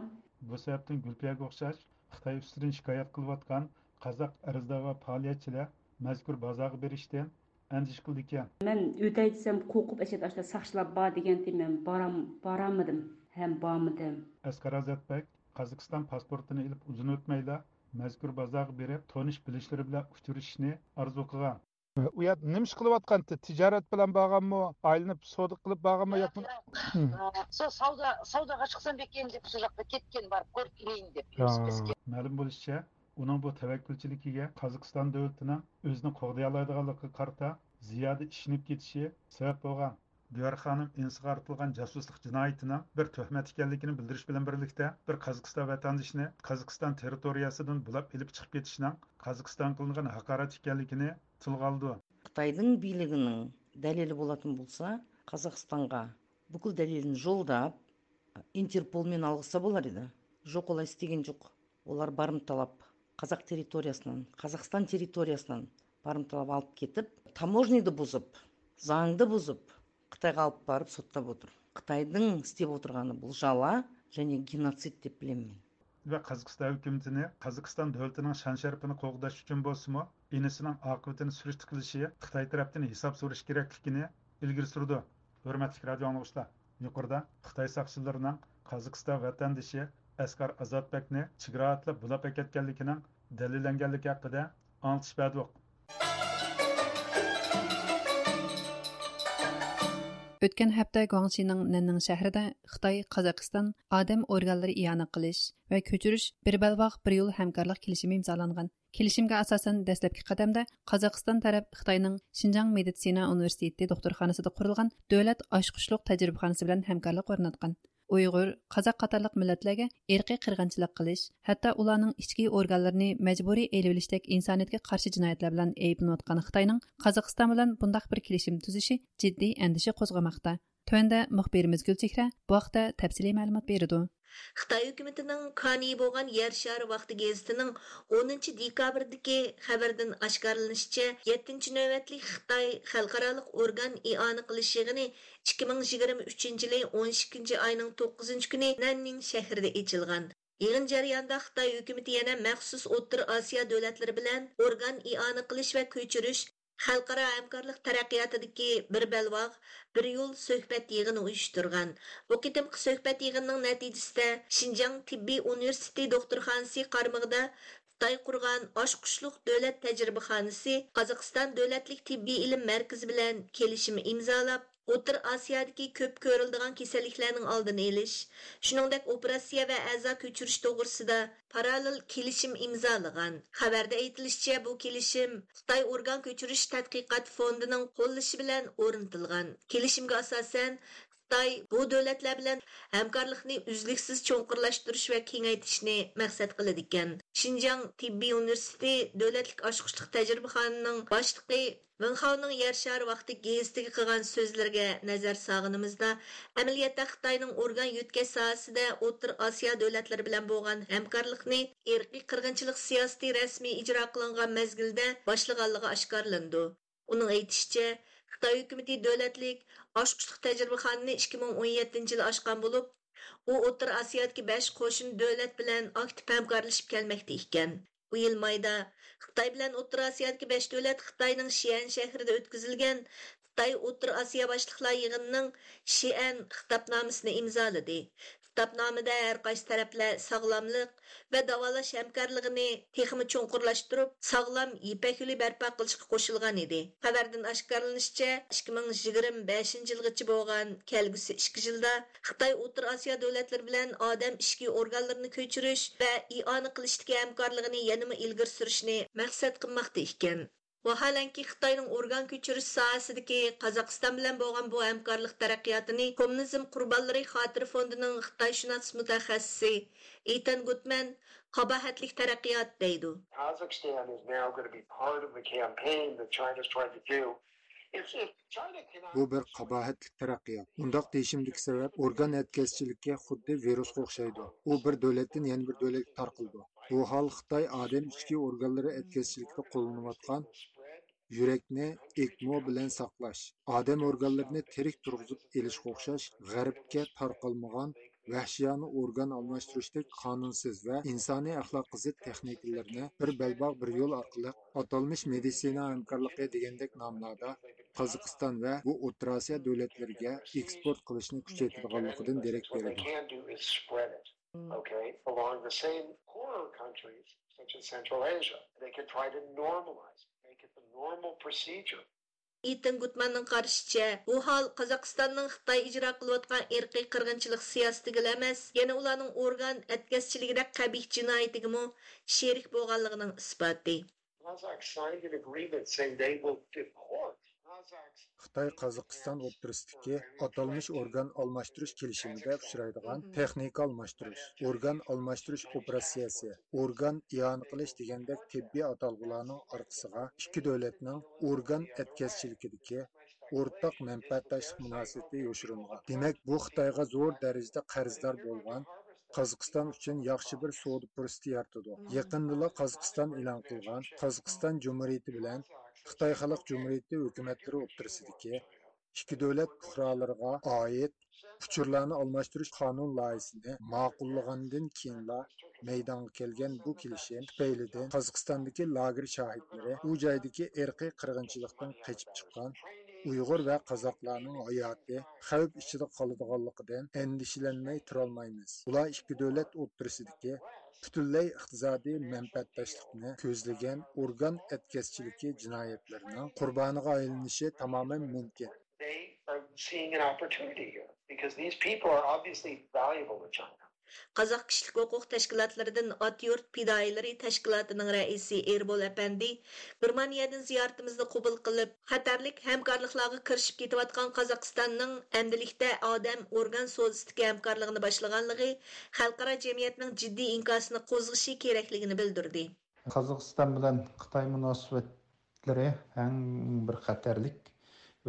بۇ سەۋەبتىن گۈلپىيەگە ئوخشاش خىتاي ئۈستىدىن شىكايەت قىلىۋاتقان قازاق ئەرزدار ۋە پائالىيەتچىلەر مەزكۇر بازارغا بېرىشتىن ئەندىشە قىلىدىكەن. مەن ئۆتەي دېسەم، قورقۇپ، ئەشەدە ئاشۇنداق ساقچىلار بار دېگەنتى، مەن بارام-، بارالمىدىم ھەم بارمىدىم. ئەسقەر ئازاتبەك قازاقىستان پاسپورتىنى ئېلىپ ئۇزۇن ئۆتمەيلا مەزكۇر بازارغا بېرىپ، تونۇش بىلىشلىرى بىلەن ئۇچرىشىشنى ئارزۇ قىلغان. ئۇ يەردە نېمە ئىش قىلىۋاتقانتى؟ تىجارەت بىلەن بارغانمۇ؟ ئايلىنىپ سودا قىلىپ بارغانمۇ ياكى؟ شۇ سودا، سوداغا چىقسام بېكىن دەپ، شۇ ياققا كەتكەن، بارىپ كۆرۈپ كېلەيىن دەپ. مەلۇم بولۇشىچە، ئۇنىڭ بۇ تەۋەككۈلچىلىكىگە قازاقىستان دۆلىتىنىڭ ئۆزىنى قوغدىيالايدىغانلىقىغا قارىتا زىيادە ئىشىنىپ كېتىشى سەۋەب بولغان. دىيار خانىم ئىنىسىغا ئارتىلغان جاسۇسلۇق جىنايىتىنىڭ بىر تۆھمەت ئىكەنلىكىنى بىلدۈرۈش بىلەن بىرلىكتە، بىر قازاقىستان ۋەتەندىشىنى قازاقىستان تېررىتورىيەسىدىن بۇلاپ ئېلىپ چىقىپ كېتىشنىڭ قازاقىستانغا قىلىنغان ھاقارەت ئىكەنلىكىنى تىلغا ئالىدۇ. خىتاينىڭ بىيلىكىنىڭ دەلىلى بولاتتىن بولسا، قازاقىستانغا بۇكۇل دەلىلىنى جوللاپ، ئىنتېرپول مېنى ئالغىسا بولار ئىدى. جوق، ئۇلار ئىستىگىنى جوق. ئۇلار بارمىتالاپ، قازاق تېررىتورىيەسىدىن، قازاقىستان تېررىتورىيەسىدىن بارمىتالاپ ئاپىرىپ كېتىپ، تاموژنىدا بۇزۇپ، زاڭدا بۇزۇپ، خىتايغا ئاپىرىپ سوتلاپ ئولتۇر. خىتاينىڭ ئىستەپ ئولتۇرغىنى بۇ جالا، يەنى گېنوسىد دەپ بىلىمەن. ۋە قازاقىستان ھۆكۈمىتىنى قازاقىستان دۆلىتىنىڭ شان-شەرىپىنى قوغداش ئۈچۈن بولسىمۇ، ئىنىسىنىڭ ئاقىۋىتىنى سۈرۈشتە قىلىشى، خىتاي تەرەپتىن ھېساب سورىشى كېرەكلىكىنى ئىلگىرى سۈرىدۇ. ھۆرمەتلىك رادىئو ئاڭلىغۇچىلار، يۇقىرىدا خىتاي ساقچىلىرىنىڭ قازاقىستان ۋەتەندىشى ئەسقەر ئازاتبەكنى چېگرا ئاتلاپ بۇلاپ ئەكەتكەنلىكىنىڭ دەلىللەنگەنلىكى ھەققىدە ئاڭلىتىش بەردۇق. ئۆتكەن ھەپتە گۇاڭشىنىڭ نەننىڭ شەھىرىدە خىتاي، قازاقىستان ئادەم ئورگانلىرى ئىئانە قىلىش ۋە كۆچۈرۈش بىر بەلباغ، بىر يول ھەمكارلىق كېلىشىمى ئىمزالانغان. كېلىشىمگە ئاساسەن، دەسلەپكى قەدەمدە قازاقىستان تەرەپ خىتاينىڭ شىنجاڭ مېدىتسىنا ئۇنىۋېرسىتېتى دوختۇرخانىسىدا قۇرۇلغان دۆلەت ئاچقۇچلۇق تەجرىبىخانىسى بىلەن ھەمكارلىق ئورناتقان. ئۇيغۇر، قازاق قاتارلىق مىللەتلەرگە ئىرقىي قىرغىنچىلىق قىلىش، ھەتتا ئۇلارنىڭ ئىچكى ئورگانلىرىنى مەجبۇرىي ئېلىۋېلىشتەك ئىنسانىيەتكە قارشى جىنايەتلەر بىلەن ئەيىبلىنىۋاتقان خىتاينىڭ قازاقىستان بىلەن بۇنداق بىر كېلىشىم تۈزۈشى جىددىي ئەندىشە قوزغىماقتا. تۆۋەندە مۇخبىرىمىز گۈلچېھرە بۇ ھەقتە تەپسىلىي مەلۇمات بېرىدۇ. خىتاي ھۆكۈمىتىنىڭ كانىيى بولغان يەر شارى ۋاقتى گېزىتىنىڭ ئونىنچى دېكابىردىكى خەۋىرىدىن ئاشكارىلىنىشىچە، يەتتىنچى نۆۋەتلىك خىتاي خەلقئارالىق ئورگان ئىئانە قىلىش يىغىنى ئىككى مىڭ يىگىرمە ئۈچىنچى يىلى ئون ئىككىنچى ئاينىڭ توققۇزىنچى كۈنى نەننىڭ شەھىرىدە ئېچىلغان. يىغىن جەريانىدا خىتاي ھۆكۈمىتى يەنە مەخسۇس ئوتتۇرا ئاسىيا دۆلەتلىرى بىلەن ئورگان ئىئانە قىلىش ۋە كۆچۈرۈش خەلقئارا ھەمكارلىق تەرەققىياتىدىكى بىر بەلباغ، بىر يول سۆھبەت يىغىنى ئۇيۇشتۇرغان. بۇ قېتىمقى سۆھبەت يىغىنىنىڭ نەتىجىسىدە شىنجاڭ تېببىي ئۇنىۋېرسىتېتى دوختۇرخانىسى قارمىقىدا خىتاي قۇرغان ئاچقۇچلۇق دۆلەت تەجرىبىخانىسى قازاقىستان دۆلەتلىك تېببىي ئىلىم مەركىزى بىلەن كېلىشىم ئىمزالاپ، ئوتتۇرا ئاسىيادىكى كۆپ كۆرۈلىدىغان كېسەللىكلەرنىڭ ئالدىنى ئېلىش، شۇنىڭدەك ئوپېراتسىيە ۋە ئەزا كۆچۈرۈش توغرىسىدا پاراللېل كېلىشىم ئىمزالىغان. خەۋەردە ئېيتىلىشىچە، بۇ كېلىشىم خىتاي ئورگان كۆچۈرۈش تەتقىقات فوندىنىڭ قوللىشى بىلەن ئورنىتىلغان. كېلىشىمگە ئاساسەن، خىتاي بۇ دۆلەتلەر بىلەن ھەمكارلىقنى ئۈزلۈكسىز چوڭقۇرلاشتۇرۇش ۋە كېڭەيتىشنى مەقسەت قىلىدىكەن. شىنجاڭ تېببىي ئۇنىۋېرسىتېتى دۆلەتلىك ئاچقۇچلۇق تەجرىبىخانىنىڭ باشلىقى ۋېنخاۋنىڭ يەر شارى ۋاقتى گېزىتىگە قىلغان سۆزلىرىگە نەزەر سالغىنىمىزدا، ئەمەلىيەتتە خىتاينىڭ ئورگان يۆتكەش ساھەسىدە ئوتتۇرا ئاسىيا دۆلەتلىرى بىلەن بولغان ھەمكارلىقنى ئىرقىي قىرغىنچىلىق سىياسىتى رەسمىي ئىجرا قىلىنغان مەزگىلدە باشلىغانلىقى ئاشكارىلىنىدۇ. ئۇنىڭ ئېيتىشىچە، خىتاي ھۆكۈمىتى دۆلەتلىك ئاچقۇچلۇق تەجرىبىخانىنى ئىككى مىڭ ئون يەتتىنچى يىلى ئاچقان بولۇپ، ئۇ ئوتتۇرا ئاسىيادىكى بەش قوشنا دۆلەت بىلەن ئاكتىپ ھەمكارلىشىپ كەلمەكتە ئىكەن. بۇ يىل مايدا خىتاي بىلەن ئوتتۇرا ئاسىيادىكى بەش دۆلەت خىتاينىڭ شىئەن شەھىرىدە ئۆتكۈزۈلگەن خىتاي ئوتتۇرا ئاسىيا باشلىقلار يىغىنىنىڭ شىئەن خىتابنامىسىنى ئىمزالىدى. خىتابنامىدە ھەر قايسى تەرەپلەر ساغلاملىق ۋە داۋالاش ھەمكارلىقىنى تېخىمۇ چوڭقۇرلاشتۇرۇپ، ساغلام يىپەك يولى بەرپا قىلىشقا قوشۇلغان ئىدى. خەۋەردىن ئاشكارىلىنىشىچە، ئىككى مىڭ يىگىرمە بەشىنچى يىلغىچە بولغان كەلگۈسى ئىككى يىلدا خىتاي ئوتتۇرا ئاسىيا دۆلەتلىرى بىلەن ئادەم ئىچكى ئورگانلىرىنى كۆچۈرۈش ۋە ئىئانە قىلىشتىكى ھەمكارلىقىنى يەنىمۇ ئىلگىرى سۈرۈشنى مەقسەت قىلماقتا ئىكەن. ۋاھالەنكى، خىتاينىڭ ئورگان كۆچۈرۈش ساھەسىدىكى قازاقىستان بىلەن بولغان بۇ ھەمكارلىق تەرەققىياتىنى كوممۇنىزم قۇربانلىرى خاتىرە فوندىنىڭ خىتايشۇناس مۇتەخەسسىسى ئېتەن گۇتمەن قاباھەتلىك تەرەققىيات دەيدۇ. Kazakhstan is now going to be part of the campaign that China's trying to do. If, if China cannot بۇ بىر قاباھەتلىك تەرەققىيات. ئۇنداق دېيىشىمدىكى سەۋەب، ئورگان ئەتكەسچىلىكى خۇددى ۋىرۇسقا ئوخشايدۇ. ئۇ بىر دۆلەتتىن يەنە بىر دۆلەتكە تارقىلىدۇ. بۇ ھال خىتاي ئادەم ئىچكى ئورگانلىرى ئەتكەسچىلىكىدە قوللىنىۋاتقان يۈرەكنى ئېكمو بىلەن ساقلاش، ئادەم ئورگانلىرىنى تىرىك تۇرغۇزۇپ ئېلىشقا ئوخشاش غەربكە تارقالمىغان ۋەھشىيانە ئورگان ئالماشتۇرۇشتەك قانۇنسىز ۋە ئىنسانىي ئەخلاققا زىت تېخنىكىلىرىنى بىر بەلباغ بىر يول ئارقىلىق ئاتالمىش مېدىتسىنا ھەمكارلىقى دېگەندەك ناملاردا قازاقىستان ۋە بۇ ئوتتۇرا ئاسىيا دۆلەتلىرىگە ئېكسپورت قىلىشنى كۈچەيتىدىغانلىقىدىن دېرەك بېرىدۇ. Okay, along the same poorer countries, such as Central Asia. They can try to normalize, make it the normal procedure. ئېتىن گۇتماننىڭ قارىشىچە، بۇ ھال قازاقىستاننىڭ خىتاي ئىجرا قىلىۋاتقان ئىرقىي قىرغىنچىلىق سىياسىتىگىلا ئەمەس، يەنە ئۇلارنىڭ ئورگان ئەتكەسچىلىكىدەك قەبىھ جىنايىتىگىمۇ شېرىك بولغانلىقىنىڭ ئىسپاتى. Kazakhs signed an agreement saying they will deport Kazakhs. خىتاي قازاقىستان ئوتتۇرىسىدىكى ئاتالمىش ئورگان ئالماشتۇرۇش كېلىشىمىدە ئۇچرايدىغان تېخنىكا ئالماشتۇرۇش، ئورگان ئالماشتۇرۇش ئوپېراتسىيەسى، ئورگان ئىئانە قىلىش دېگەندەك تېببىي ئاتالغۇلارنىڭ ئارقىسىغا ئىككى دۆلەتنىڭ ئورگان ئەتكەسچىلىكىدىكى ئورتاق مەنپەئەتداشلىق مۇناسىۋىتى يوشۇرۇنغان. دېمەك، بۇ خىتايغا زور دەرىجىدە قەرزدار بولغان، قازاقىستان ئۈچۈن ياخشى بىر سودا پۇرسىتى يارىتىدۇ. يېقىندىلا قازاقىستان ئېلان قىلغان، قازاقىستان جۇمھۇرىيىتى بىلەن خىتاي خەلق جۇمھۇرىيىتى ھۆكۈمەتلىرى ئوتتۇرىسىدىكى ئىككى دۆلەت پۇقرالىرىغا ئائىت ئۇچۇرلارنى ئالماشتۇرۇش قانۇن لايىھىسىنى ماقۇللىغاندىن كېيىنلا مەيدانغا كەلگەن بۇ كېلىشىم تۈپەيلىدىن قازاقىستاندىكى لاگېر شاھىتلىرى، ئۇ جايدىكى ئىرقىي قىرغىنچىلىقتىن قېچىپ چىققان ئۇيغۇر ۋە قازاقلارنىڭ ھاياتى خەۋپ ئىچىدە قالىدىغانلىقىدىن ئەندىشىلەنمەي تۇرالمايمىز. ئۇلار ئىككى دۆلەت ئوتتۇرىسىدىكى پۈتۈنلەي ئىقتىسادىي مەنپەئەتداشلىقنى كۆزلىگەن ئورگان ئەتكەسچىلىكى جىنايەتلىرىنىڭ قۇربانىغا ئايلىنىشى تامامەن مۇمكىن. They are seeing an opportunity here because these people are obviously valuable to China. قازاق كىشىلىك ھوقۇق تەشكىلاتلىرىدىن ئات يۇرت پىدائىيلىرى تەشكىلاتىنىڭ رەئىسى ئېربول ئەپەندى گېرمانىيەدىن زىيارىتىمىزنى قوبۇل قىلىپ، خەتەرلىك ھەمكارلىقلارغا كىرىشىپ كېتىۋاتقان قازاقىستاننىڭ ئەمدىلىكتە ئادەم ئورگان سودىسىدىكى ھەمكارلىقىنى باشلىغانلىقى خەلقئارا جەمئىيەتنىڭ جىددىي ئىنكاسىنى قوزغىشى كېرەكلىكىنى بىلدۈردى. قازاقىستان بىلەن خىتاي مۇناسىۋەتلىرى ئەڭ بىر خەتەرلىك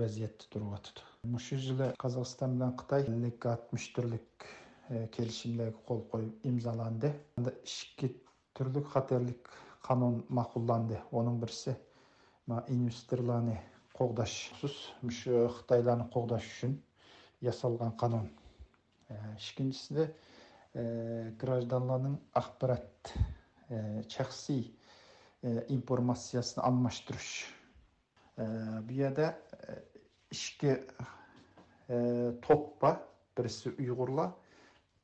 ۋەزىيەتتە تۇرۇۋاتىدۇ. مۇشۇ يىلى قازاقىستان بىلەن خىتاي ئەللىك ئاتمىش تۈرلۈك، ئە، كېلىشىملەرگە قول قويۇپ ئىمزالاندى. ئىككى تۈرلۈك خەتەرلىك قانۇن ماقۇللاندى. ئۇنىڭ بىرسى، ما، ئىنۋېستورلارنى قوغداش، مۇشۇ خىتايلارنى قوغداش ئۈچۈن ياسالغان قانۇن. ئە، ئىككىنچىسى، ئە، گراژدانلارنىڭ ئاخبارات، ئە، شەخسىي، ئە، ئىنفورماتسىيەسىنى ئالماشتۇرۇش. ئە، بۇ يەردە، ئە، ئىككى، ئە، توپ بار. بىرسى ئۇيغۇرلار،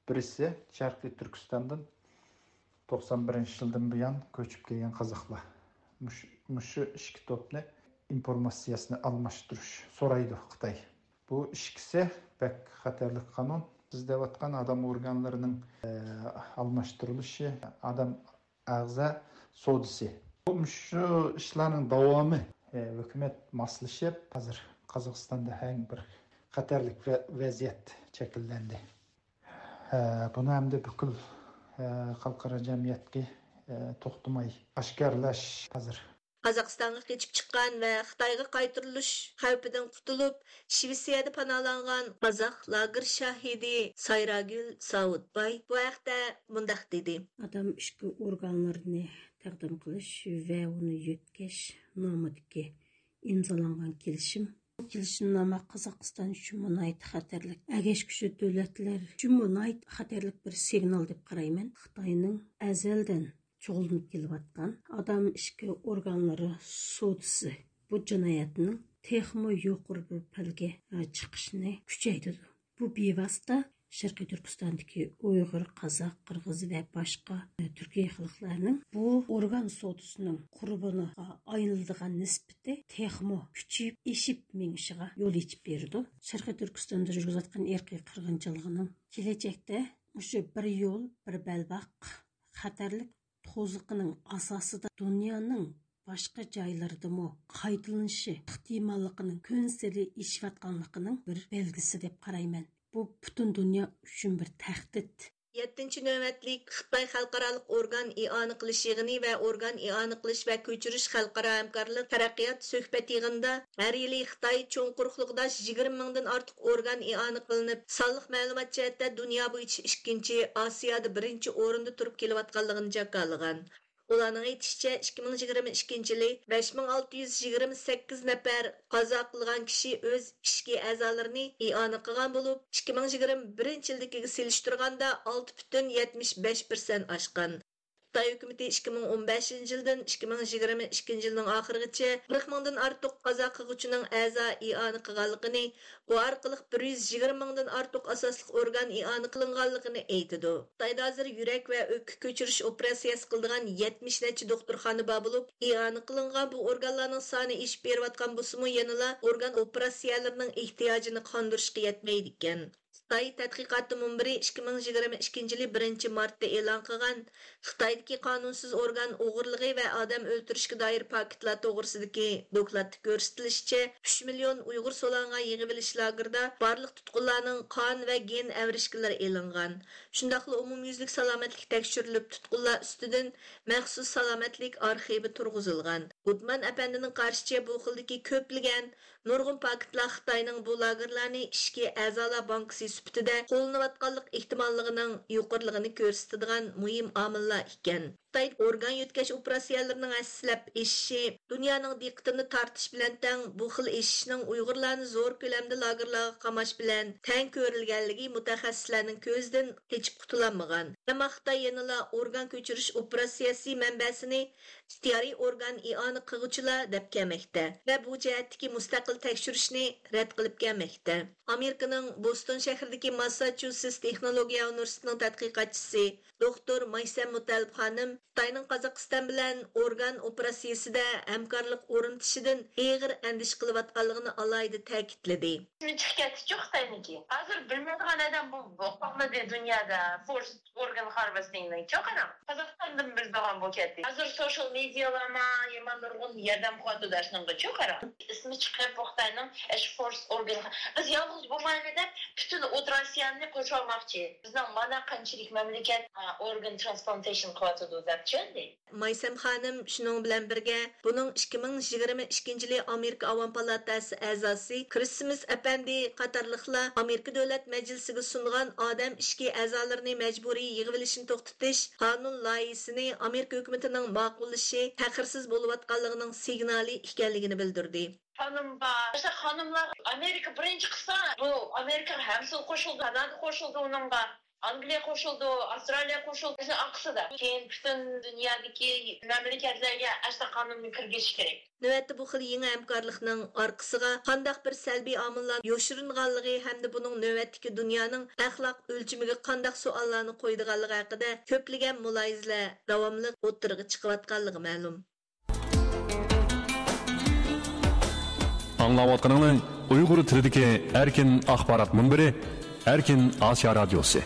بىرسى شەرقىي تۈركىستاندىن توقسان بىرىنچى يىلدىن بۇيان كۆچۈپ كەلگەن قازاقلار. مۇش-، مۇشۇ ئىككى توپنى ئىنفورماتسىيەسىنى ئالماشتۇرۇش سورايدۇ خىتاي. بۇ ئىككىسى بەك خەتەرلىك قانۇن. سىز دەۋاتقان ئادەم ئورگانلىرىنىڭ، ئە، ئالماشتۇرۇلۇشى، ئادەم ئەغزا سودىسى. بۇ مۇشۇ ئىشلارنىڭ داۋامى. ئە، ھۆكۈمەت ماسلىشىپ، ھازىر قازاقىستاندا ھەم بىر خەتەرلىك ۋە-، ۋەزىيەت شەكىللەندى. ئە، بۇنى ئەمدى پۈتكۈل، ئە، خەلقئارا جەمئىيەتكە، ئە، توختىماي ئاشكارىلاش ھازىر. قازاقىستانغا قېچىپ چىققان ۋە خىتايغا قايتۇرۇلۇش خەۋپىدىن قۇتۇلۇپ، شىۋېتسىيەدە پاناھلانغان قازاق لاگېر شاھىدى سايراگۈل ساۋۇتباي بۇ ھەقتە مۇنداق دېدى. ئادام ئىچكى ئورگانلىرىنى تەقدىم قىلىش ۋە ئۇنى يۆتكەش نامىدىكى ئىمزالانغان كېلىشىم. بۇ كېلىشىمنامە قازاقىستان ئۈچۈنمۇ ناھايىتى خەتەرلىك، ئەگەشكۈچى دۆلەتلەر ئۈچۈنمۇ ناھايىتى خەتەرلىك بىر سىگنال دەپ قارايمەن. خىتاينىڭ ئەزەلدىن شۇغۇللىنىپ كېلىۋاتقان ئادام ئىچكى ئورگانلىرى سودىسى بۇ جىنايەتنىڭ تېخىمۇ يۇقىرى بىر پەلگە، ئە، چىقىشىنى كۈچەيتىدۇ. بۇ بىۋاسىتە شەرقىي تۈركىستاندىكى ئۇيغۇر، قازاق، قىرغىز ۋە باشقا، ئە، تۈركىي خەلقلەرنىڭ بۇ ئورگان سودىسىنىڭ قۇربىنىغا ئايلىنىدىغان نىسبىتى تېخىمۇ كۈچىيىپ، ئېشىپ مېڭىشىغا يول ئېچىپ بېرىدۇ. شەرقىي تۈركىستاندا يۈرگۈزۈۋاتقان ئىرقىي قىرغىنچىلىقىنىڭ كېلەچەكتە مۇشۇ بىر يول، بىر بەلباغ خەتەرلىك توزۇقىنىڭ ئاساسىدا دۇنيانىڭ باشقا جايلىرىدىمۇ قايتىلىنىشى ئېھتىماللىقىنىڭ كۈنسېرى ئېشىۋاتقانلىقىنىڭ بىر بەلگىسى دەپ قارايمەن. بۇ پۈتۈن دۇنيا ئۈچۈن بىر تەھدىت. يەتتىنچى نۆۋەتلىك خىتاي خەلقئارالىق ئورگان ئىئانە قىلىش يىغىنى ۋە ئورگان ئىئانە قىلىش ۋە كۆچۈرۈش خەلقئارا ھەمكارلىق تەرەققىيات سۆھبەت يىغىنىدا ھەر يىلى خىتاي چوڭ قۇرۇقلۇقىدا يىگىرمە مىڭدىن ئارتۇق ئورگان ئىئانە قىلىنىپ، سانلىق مەلۇمات جەھەتتە دۇنيا بويىچە ئىككىنچى، ئاسىيادا بىرىنچى ئورۇندا تۇرۇپ كېلىۋاتقانلىقىنى جاكارلىغان. ئۇلارنىڭ ئېيتىشىچە، ئىككى مىڭ يىگىرمە ئىككىنچى يىلى بەش مىڭ ئالتە يۈز يىگىرمە سەككىز نەپەر قازا قىلغان كىشى ئۆز ئىچكى ئەزالىرىنى ئىئانە قىلغان بولۇپ، ئىككى مىڭ يىگىرمە بىرىنچى يىلدىكىگە سېلىشتۇرغاندا ئالتە پۈتۈن يەتمىش بەش پىرسەنت ئاشقان. خىتاي ھۆكۈمىتى ئىككى مىڭ ئون بەشىنچى يىلدىن ئىككى مىڭ يىگىرمە ئىككىنچى يىلنىڭ ئاخىرىغىچە قىرىق مىڭدىن ئارتۇق قازا قىلغۇچىنىڭ ئەزا ئىئانە قىلغانلىقىنى، بۇ ئارقىلىق بىر يۈز يىگىرمە مىڭدىن ئارتۇق ئاساسلىق ئورگان ئىئانە قىلىنغانلىقىنى ئېيتىدۇ. خىتايدا ھازىر يۈرەك ۋە ئۆپكە كۆچۈرۈش ئوپېراتسىيەسى قىلىدىغان يەتمىش نەچچە دوختۇرخانا بار بولۇپ، ئىئانە قىلىنغان بۇ ئورگانلارنىڭ سانى ئېشىپ بېرىۋاتقان بولسىمۇ، يەنىلا ئورگان ئوپېراتسىيەلىرىنىڭ ئېھتىياجىنى قاندۇرۇشقا يەتمەيدىكەن. خىتاي تەتقىقاتى مۇنبىرى ئىككى مىڭ يىگىرمە ئىككىنچى يىلى بىرىنچى مارتتا ئېلان قىلغان خىتايدىكى قانۇنسىز ئورگان ئوغرىلىقى ۋە ئادەم ئۆلتۈرۈشكە دائىر پاكىتلار توغرىسىدىكى دوكلاتتا كۆرسىتىلىشىچە، ئۈچ مىليون ئۇيغۇر سولانغان يىغىۋېلىش لاگېرىدا بارلىق تۇتقۇنلارنىڭ قان ۋە گېن ئەۋرىشكىلىرى ئېلىنغان. شۇنداقلا ئومۇميۈزلۈك سالامەتلىك تەكشۈرۈلۈپ، تۇتقۇنلار ئۈستىدىن مەخسۇس سالامەتلىك ئارخىۋى تۇرغۇزۇلغان. گۇتمان ئەپەندىنىڭ قارىشىچە، بۇ خىلدىكى كۆپلىگەن نۇرغۇن پاكىتلار خىتاينىڭ بۇ لاگېرلارنى ئىچكى ئەزالار بانكىسى سۈپىتىدە قوللىنىۋاتقانلىق ئېھتىماللىقىنىڭ يۇقىرىلىقىنى كۆرسىتىدىغان مۇھىم ئامىللار ئىكەن. خىتاي ئورگان يۆتكەش ئوپېراتسىيەلىرىنىڭ ھەسسىلەپ ئېشىشى دۇنيانىڭ دىققىتىنى تارتىش بىلەن تەڭ، بۇ خىل ئېشىشنىڭ ئۇيغۇرلارنى زور كۆلەمدە لاگېرلارغا قاماش بىلەن تەڭ كۆرۈلگەنلىكى مۇتەخەسسىسلەرنىڭ كۆزىدىن قېچىپ قۇتۇلالمىغان. ئەمما خىتاي يەنىلا ئورگان كۆچۈرۈش ئوپېراتسىيەسى مەنبەسىنى ئىختىيارىي ئورگان ئىئانە قىلغۇچىلار دەپ كەلمەكتە ۋە بۇ جەھەتتىكى مۇستەقىل تەكشۈرۈشنى رەت قىلىپ كەلمەكتە. ئامېرىكىنىڭ بوستون شەھىرىدىكى ماسساچۇسېتس تېخنولوگىيە ئۇنىۋېرسىتېتىنىڭ تەتقىقاتچىسى دوختۇر مايسەم مۇتەللىپ خانىم خىتاينىڭ قازاقىستان بىلەن ئورگان ئوپېراتسىيىسىدە ھەمكارلىق ئورنىتىشىدىن ئېغىر ئەندىشە قىلىۋاتقانلىقىنى ئالاھىدە تەكىتلىدى. ئىسمى چىقىپ كەتتىچۇ خىتاينىڭكى. ھازىر بىلمەيدىغان ئادەم بۇ، بۇ قالمىدى دۇنيادا. فورس ئورگان خارۋېستىڭنى چوقۇرا قازاقىستاندىن بىلىدىغان بولۇپ كەتتى. ھازىر سوشال مېدىيالارما، يامان نۇرغۇن ياردەم قىلىۋاتىدۇ ئاشۇنىڭغا چوقۇرا. ئىسمى چىقىپ، بۇ خىتاينىڭ ئاشۇ فورس ئورگان، بىز يالغۇز بولمايلى دەپ پۈتۈن ئوتتۇرا ئاسىيانى قورشاۋالماقچى. بىزنىڭ مانا قانچىلىك مەملىكەت، ئا، ئورگان ترانسپلانتېيشن قىلىۋاتىدۇ دەپ چۈشەندى. مايسەم خانىم شۇنىڭ بىلەن بىرگە، بۇنىڭ ئىككى مىڭ يىگىرمە ئىككىنچى يىلى ئامېرىكا ئاۋام پالاتاسى ئەزاسى كرىسمىس ئەپەندى قاتارلىقلار ئامېرىكا دۆلەت مەجلىسىگە سۇنغان ئادەم ئىچكى ئەزالىرىنى مەجبۇرىي يىغىۋېلىشنى توختىتىش قانۇن لايىھىسىنى ئامېرىكا ھۆكۈمىتىنىڭ ماقۇللىشى تەخىرسىز بولۇۋاتقانلىقىنىڭ سىگنالى ئىكەنلىكىنى بىلدۈردى. خانىم بار. مەسىلەن، خانىملار ئامېرىكا بىرىنچى قىلسا، بۇ ئامېرىكا ھەممىسى قوشۇلدى، كانادا قوشۇلدى ئۇنىڭغا. ئانگلىيە قوشۇلدى، ئاۋسترالىيە قوشۇلدى. شۇ ئارقىسىدا كېيىن پۈتۈن دۇنيادىكى مەملىكەتلەرگە ئەسلى قانۇننى كىرگۈزۈش كېرەك. نۆۋەتتە بۇ خىل يېڭى ھەمكارلىقنىڭ ئارقىسىغا قانداق بىر سەلبىي ئامىللار يوشۇرۇنغانلىقى ھەمدە بۇنىڭ نۆۋەتتىكى دۇنيانىڭ ئەخلاق ئۆلچىمىگە قانداق سوئاللارنى قويىدىغانلىقى ھەققىدە كۆپلىگەن مۇلاھىزىلەر داۋاملىق ئوتتۇرىغا چىقىۋاتقانلىقى مەلۇم. ئاڭلاۋاتقىنىڭلار ئۇيغۇر تىلىدىكى ئەركىن ئاخبارات مۇنبىرى، ئەركىن ئاسىيا رادىيوسى.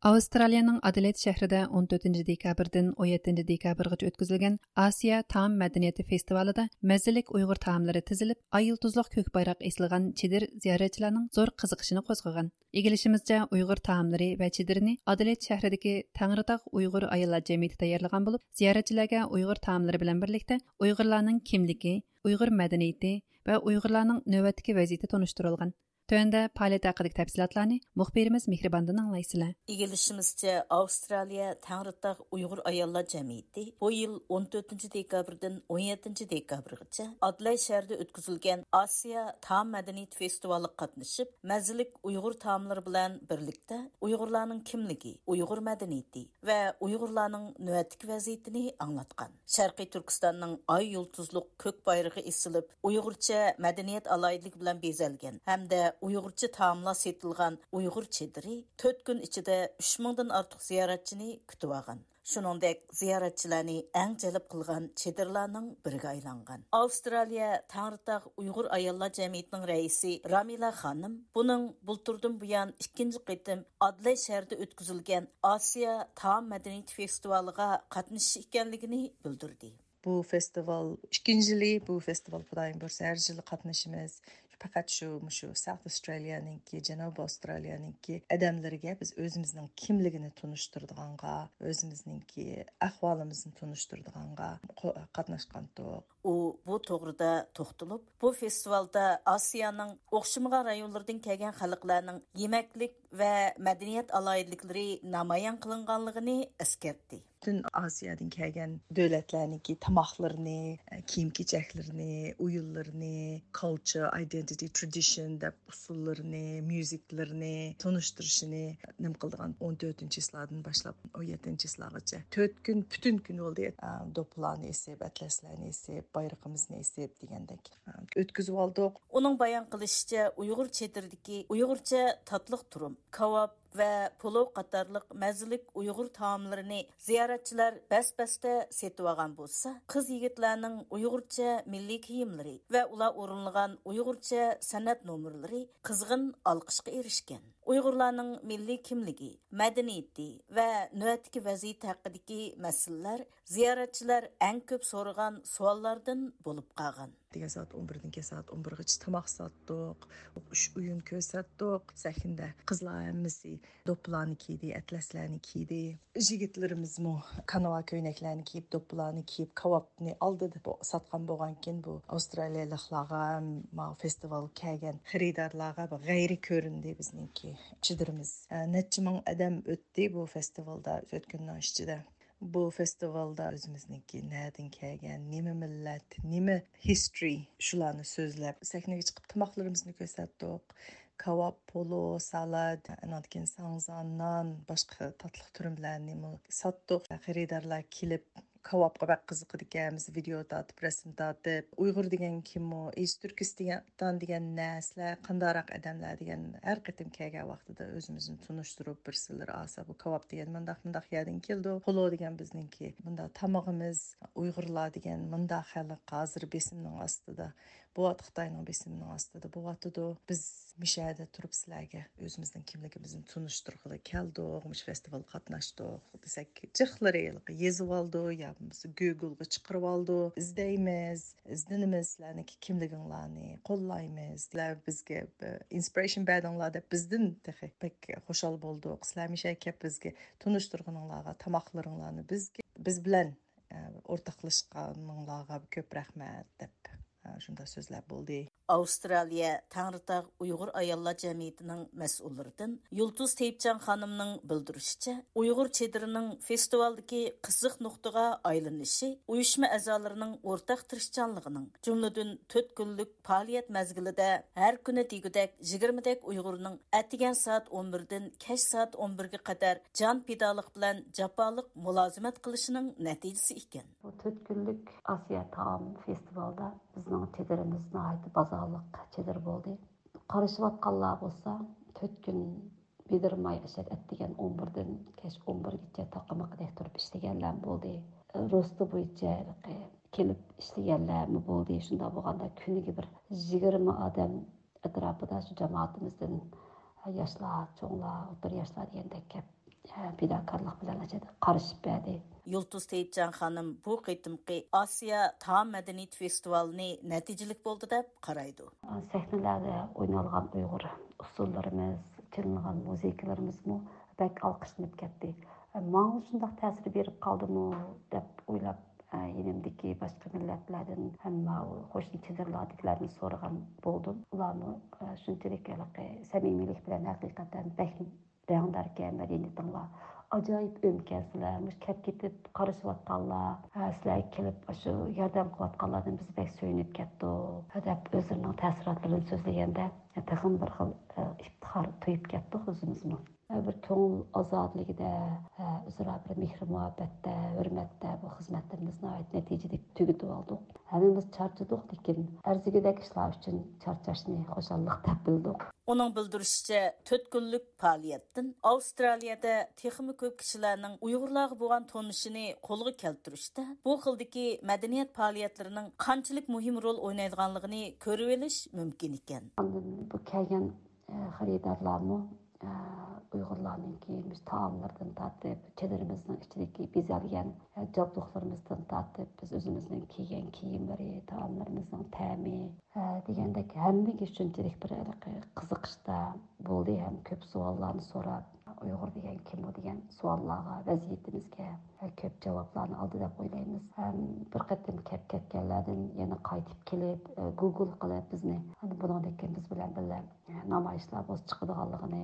ئاۋسترالىيەنىڭ ئادېلېيد شەھىرىدە ئون تۆتىنچى دېكابىردىن ئون يەتتىنچى دېكابىرغىچە ئۆتكۈزۈلگەن ئاسىيا تائام مەدەنىيىتى فېستىۋالىدا مەززىلىك ئۇيغۇر تائاملىرى تىزىلىپ، ئاي يۇلتۇزلۇق كۆك بايراق ئېسىلغان چېدىر زىيارەتچىلەرنىڭ زور قىزىقىشىنى قوزغىغان. ئىگىلىشىمىزچە، ئۇيغۇر تائاملىرى ۋە چېدىرىنى ئادېلېيد شەھىرىدىكى تەڭرىتاغ ئۇيغۇر ئاياللار جەمئىيىتى تەييارلىغان بولۇپ، زىيارەتچىلەرگە ئۇيغۇر تائاملىرى بىلەن بىرلىكتە ئۇيغۇرلارنىڭ كىملىكى، ئۇيغۇر مەدەنىيىتى ۋە ئۇيغۇرلارنىڭ نۆۋەتتىكى ۋەزىيىتى تونۇشتۇرۇلغان. تۆۋەندە پائالىيەت ھەققىدىكى تەپسىلاتلارنى مۇخبىرىمىز مېھرىباندىن ئاڭلايسىلەر. ئىگىلىشىمىزچە، ئاۋسترالىيە تەڭرىتاغ ئۇيغۇر ئاياللار جەمئىيىتى بۇ يىل ئون تۆتىنچى دېكابىردىن ئون يەتتىنچى دېكابىرغىچە ئادېلېيد شەھىرىدە ئۆتكۈزۈلگەن ئاسىيا تائام مەدەنىيىتى فېستىۋالىغا قاتنىشىپ، مەززىلىك ئۇيغۇر تائاملىرى بىلەن بىرلىكتە ئۇيغۇرلارنىڭ كىملىكى، ئۇيغۇر مەدەنىيىتى ۋە ئۇيغۇرلارنىڭ نۆۋەتتىكى ۋەزىيىتىنى ئاڭلاتقان. شەرقىي تۈركىستاننىڭ ئاي يۇلتۇزلۇق كۆك بايرىقى ئېسىلىپ، ئۇيغۇرچە مەدەنىيەت ئالاھىدىلىكى بىلەن بېزەلگەن ھەمدە ئۇيغۇرچە تائاملار سېتىلغان ئۇيغۇر چېدىرى تۆت كۈن ئىچىدە ئۈچ مىڭدىن ئارتۇق زىيارەتچىنى كۈتۈۋالغان. شۇنىڭدەك زىيارەتچىلەرنى ئەڭ جەلپ قىلغان چېدىرلارنىڭ بىرىگە ئايلانغان. ئاۋسترالىيە تەڭرىتاغ ئۇيغۇر ئاياللار جەمئىيىتىنىڭ رەئىسى رامىلە خانىم بۇنىڭ بۇلتۇردىن بۇيان ئىككىنچى قېتىم ئادېلېيد شەھىرىدە ئۆتكۈزۈلگەن ئاسىيا تائام مەدەنىيىتى فېستىۋالىغا قاتنىشىش ئىكەنلىكىنى بىلدۈردى. بۇ فېستىۋال ئىككىنچى يىلى، بۇ فېستىۋال خۇدايىم بۇيرۇسا ھەر يىلى قاتنىشىمىز. پەقەت شۇ، مۇشۇ ساوت ئاۋسترالىيەنىڭكى، جەنۇبىي ئاۋسترالىيەنىڭكى ئادەملىرىگە بىز ئۆزىمىزنىڭ كىملىكىنى تونۇشتۇرىدىغانغا، ئۆزىمىزنىڭكى ئەھۋالىمىزنى تونۇشتۇرىدىغانغا قو-، قاتناشقانتۇق. ئۇ بۇ توغرىدا توختىلىپ، بۇ فېستىۋالدا ئاسىيانىڭ ئوخشىمىغان رايونلىرىدىن كەلگەن خەلقلەرنىڭ يېمەكلىك ۋە مەدەنىيەت ئالاھىدىلىكلىرى نامايان قىلىنغانلىقىنى ئەسكەرتتى. پۈتۈن ئاسىيادىن كەلگەن دۆلەتلەرنىڭكى تاماقلىرىنى، كىيىم-كېچەكلىرىنى، ئويۇنلىرىنى، كالچر، ئايدېنتىتى، ترېدىشن دەپ ئۇسسۇللىرىنى، ميۇزىكلىرىنى تونۇشتۇرۇشىنى نېمە قىلىدىغان ئون تۆتىنچى چىسلادىن باشلاپ ئون يەتتىنچى چىسلاغىچە تۆت كۈن، پۈتۈن كۈن بولدى. ئە، دوپپىلارنى ئېسىپ، ئەتلەسلەرنى ئېسىپ، بايرىقىمىزنى ئېسىپ دېگەندەك، ئە، ئۆتكۈزۈۋالدۇق. ئۇنىڭ بايان قىلىشىچە، ئۇيغۇر چېدىرىدىكى ئۇيغۇرچە تاتلىق تۇرۇم، كاۋاپ ۋە پولو قاتارلىق مەززىلىك ئۇيغۇر تائاملىرىنى زىيارەتچىلەر بەس-بەستە سېتىۋالغان بولسا، قىز-يىگىتلەرنىڭ ئۇيغۇرچە مىللىي كىيىملىرى ۋە ئۇلار ئورۇنلىغان ئۇيغۇرچە سەنئەت نومۇرلىرى قىزغىن ئالقىشقا ئېرىشكەن. ئۇيغۇرلارنىڭ مىللىي كىملىكى، مەدەنىيىتى ۋە نۆۋەتتىكى ۋەزىيىتى ھەققىدىكى مەسىلىلەر زىيارەتچىلەر ئەڭ كۆپ سورىغان سوئاللاردىن بولۇپ قالغان. ئەتىگەن سائەت ئون بىردىن كەچ سائەت ئون بىرغىچە تاماق ساتتۇق، ئۈچ ئويۇن كۆرسەتتۇق. سەھنىدە قىزلار ھەممىسى دوپپىلارنى كىيدى، ئەتلەسلەرنى كىيدى. يىگىتلىرىمىزمۇ كاناۋا كۆينەكلەرنى كىيىپ، دوپپىلارنى كىيىپ، كاۋاپنى ئالدىدا بو-، ساتقان بولغانكىن، بۇ ئاۋسترالىيەلىكلارغا، ماۋۇ فېستىۋالغا كەلگەن خېرىدارلارغا بىر غەيرىي كۆرۈندى بىزنىڭكى چېدىرىمىز. ئە، نەچچە مىڭ ئادەم ئۆتتى بۇ فېستىۋالدا تۆت كۈننىڭ ئىچىدە. بۇ فېستىۋالدا ئۆزىمىزنىڭكى نەدىن كەلگەن، نېمە مىللەت، نېمە ھىستورى، شۇلارنى سۆزلەپ، سەھنىگە چىقىپ تاماقلىرىمىزنى كۆرسەتتۇق. كاۋاپ، پولو، سالات، ئاندىن كېيىن ساڭزا، نان، باشقا تاتلىق تۈرۈملەرنىمۇ ساتتۇق. خېرىدارلار كېلىپ، كاۋاپقا بەك قىزىقىدىكەن، بىز ۋىدېئو تارتىپ، رەسىم تارتىپ، ئۇيغۇر دېگەن كىمۇ، ئىز تۈركىستان دېگەن نە، سىلەر قانداقراق ئادەملەر دېگەن، ھەر قېتىم كەلگەن ۋاقتىدا ئۆزىمىزنى تونۇشتۇرۇپ، بىرسىلىرى ئاسا بۇ كاۋاپ دېگەن مۇنداق، مۇنداق يەردىن كېلىدۇ، پولو دېگەن بىزنىڭكى مۇنداق تامىقىمىز، ئۇيغۇرلار دېگەن مۇنداق خەلق ھازىر بېسىمنىڭ ئاستىدا بولۇۋاتىدۇ، خىتاينىڭ بېسىمىنىڭ ئاستىدا بولۇۋاتىدۇ. بىز مۇشۇ يەردە تۇرۇپ سىلەرگە ئۆزىمىزنىڭ كىملىكىمىزنى تونۇشتۇرغىلى كەلدۇق، مۇشۇ فېستىۋالغا قاتناشتۇق دېسەك، جىقلىرى ھېلىقى يېزىۋالىدۇ يا بولمىسا گوگلغا چىقىرىۋالىدۇ. ئىزدەيمىز، ئىزدىنىمىز، سىلەرنىڭكى كىملىكىڭلارنى قوللايمىز. سىلەر بىزگە بىر ئىنسپىرېيشن بەردىڭلار دەپ بىزدىن تېخى بەك خۇشال بولدۇق. سىلەر مۇشۇ يەرگە كەپ بىزگە تونۇشتۇرغىنىڭلارغا، تاماقلىرىڭلارنى بىزگە، بىز بىلەن ئورتاقلاشقانىڭلارغا كۆپ رەھمەت دەپ، شۇنداق سۆزلەر بولدى. ئاۋسترالىيە تەڭرىتاغ ئۇيغۇر ئاياللار جەمئىيىتىنىڭ مەسئۇللىرىدىن يۇلتۇز تېيىپجان خانىمنىڭ بىلدۈرۈشىچە، ئۇيغۇر چېدىرىنىڭ فېستىۋالدىكى قىزىق نۇقتىغا ئايلىنىشى ئۇيۇشما ئەزالىرىنىڭ ئورتاق تىرىشچانلىقىنىڭ، جۈملىدىن تۆت كۈنلۈك پائالىيەت مەزگىلىدە ھەر كۈنى دېگۈدەك يىگىرمىدەك ئۇيغۇرنىڭ ئەتىگەن سائەت ئون بىردىن كەچ سائەت ئون بىرگە قەدەر جان پىدالىق بىلەن جاپالىق مۇلازىمەت قىلىشىنىڭ نەتىجىسى ئىكەن. بۇ تۆت كۈنلۈك ئاسىيا تائام فېستىۋالىدا بىزنىڭ چېدىرىمىز ناھايىتى بازارلىق چېدىر بولدى. قارىشىۋاتقانلار بولسا، تۆت كۈن بېدىرماي ئەشەد ئەتىگەن ئون بىردىن كەچ ئون بىرگىچە تاقىمىقىدەك تۇرۇپ ئىشلىگەنلەر بولدى. روستا بويىچە كېلىپ ئىشلىگەنلەرمۇ بولدى. شۇنداق بولغاندا كۈنىگە بىر يىگىرمە ئادەم ئەتراپىدا شۇ جامائىتىمىزدىن ياشلار، چوڭلار، ئوتتۇرا ياشلار دېگەندەك كەپ پىداكارلىق بىلەن قارىشىپ بەردى. يۇلتۇز تېيىپجان خانىم بۇ قېتىمقى ئاسىيا تائام مەدەنىيىتى فېستىۋالىنى نەتىجىلىك بولدى دەپ قارايدۇ. سەھنىلەردە ئوينالغان ئۇيغۇر ئۇسسۇللىرىمىز، چېلىنغان مۇزىكىلىرىمىزمۇ بەك ئالقىشلىنىپ كەتتى. ماڭا شۇنداق تەسىر بېرىپ قالدىمۇ دەپ ئويلاپ، يېنىمدىكى باشقا مىللەتلەردىن ھەم قوشنا چېدىرلاردىكىلەردىن سورىغان بولدۇم. ئۇلارمۇ شۇنچىلىك ھېلىقى سەمىمىيلىك بىلەن ھەقىقەتەن بەك رەڭداركەن مەدەنىيىتىڭلار، ئاجايىپ ئۆمىكەنسىلەر، مۇشۇ كەپ كېتىپ قارىشىۋاتقانلار، ھە، سىلەرگە كېلىپ ئاشۇ ياردەم قىلىۋاتقانلاردىن بىز بەك سۆيۈنۈپ كەتتۇق، ھە، دەپ ئۆزلىرىنىڭ تەسىراتلىرىنى سۆزلىگەندە، ھە، تېخىمۇ بىر خىل، ھە، ئىپتىخار تۇيۇپ كەتتۇق ئۆزىمىزمۇ. ھە، بىر كۆڭۈل ئازادىلىكىدە، ھە، ئۆزئارا بىر مېھرى مۇھەببەتتە، ھۆرمەتتە بۇ خىزمەتلىرىمىز ناھايىتى نەتىجىلىك تۈگىتىۋالدۇق. ھەممىمىز چارچىدۇق، لېكىن ئەرزىگۈدەك ئىشلار ئۈچۈن چارچاشنى خۇشاللىق دەپ بىلدۇق. ئۇنىڭ بىلدۈرۈشىچە، تۆت كۈنلۈك پائالىيەتتىن ئاۋسترالىيەدە تېخىمۇ كۆپ كىشىلەرنىڭ ئۇيغۇرلارغا بولغان تونۇشىنى قولغا كەلتۈرۈشتە بۇ خىلدىكى مەدەنىيەت پائالىيەتلىرىنىڭ قانچىلىك مۇھىم رول ئوينايدىغانلىقىنى كۆرۈۋېلىش مۇمكىن ئىكەن. ئاندىن بۇ كەلگەن، ئە، خېرىدارلارمۇ، ئە، ئۇيغۇرلارنىڭكى مۇشۇ تائاملىرىدىن تارتىپ، چېدىرىمىزنىڭ ئىچىدىكى بېزەلگەن، ئە، جابدۇقلىرىمىزدىن تارتىپ، بىز ئۆزىمىزنىڭ كىيگەن كىيىملىرى، تائاملىرىمىزنىڭ تەمى، ھە، دېگەندەك ھەممىگە شۇنچىلىك بىر ھېلىقى قىزىقىشتا بولدى ھەم كۆپ سوئاللارنى سوراپ، ئۇيغۇر دېگەن كىم ئۇ دېگەن سوئاللارغا، ۋەزىيىتىمىزگە، ھە، كۆپ جاۋابلارنى ئالدى دەپ ئويلايمىز. ھەم بىر قېتىم كەپ كەتكەنلەردىن يەنە قايتىپ كېلىپ، ئە، گۇگل قىلىپ بىزنى، ھە، بۇنىڭدىن كېيىن بىز بىلەن بىللە، ھە، نامايىشلار بولسا چىقىدىغانلىقىنى،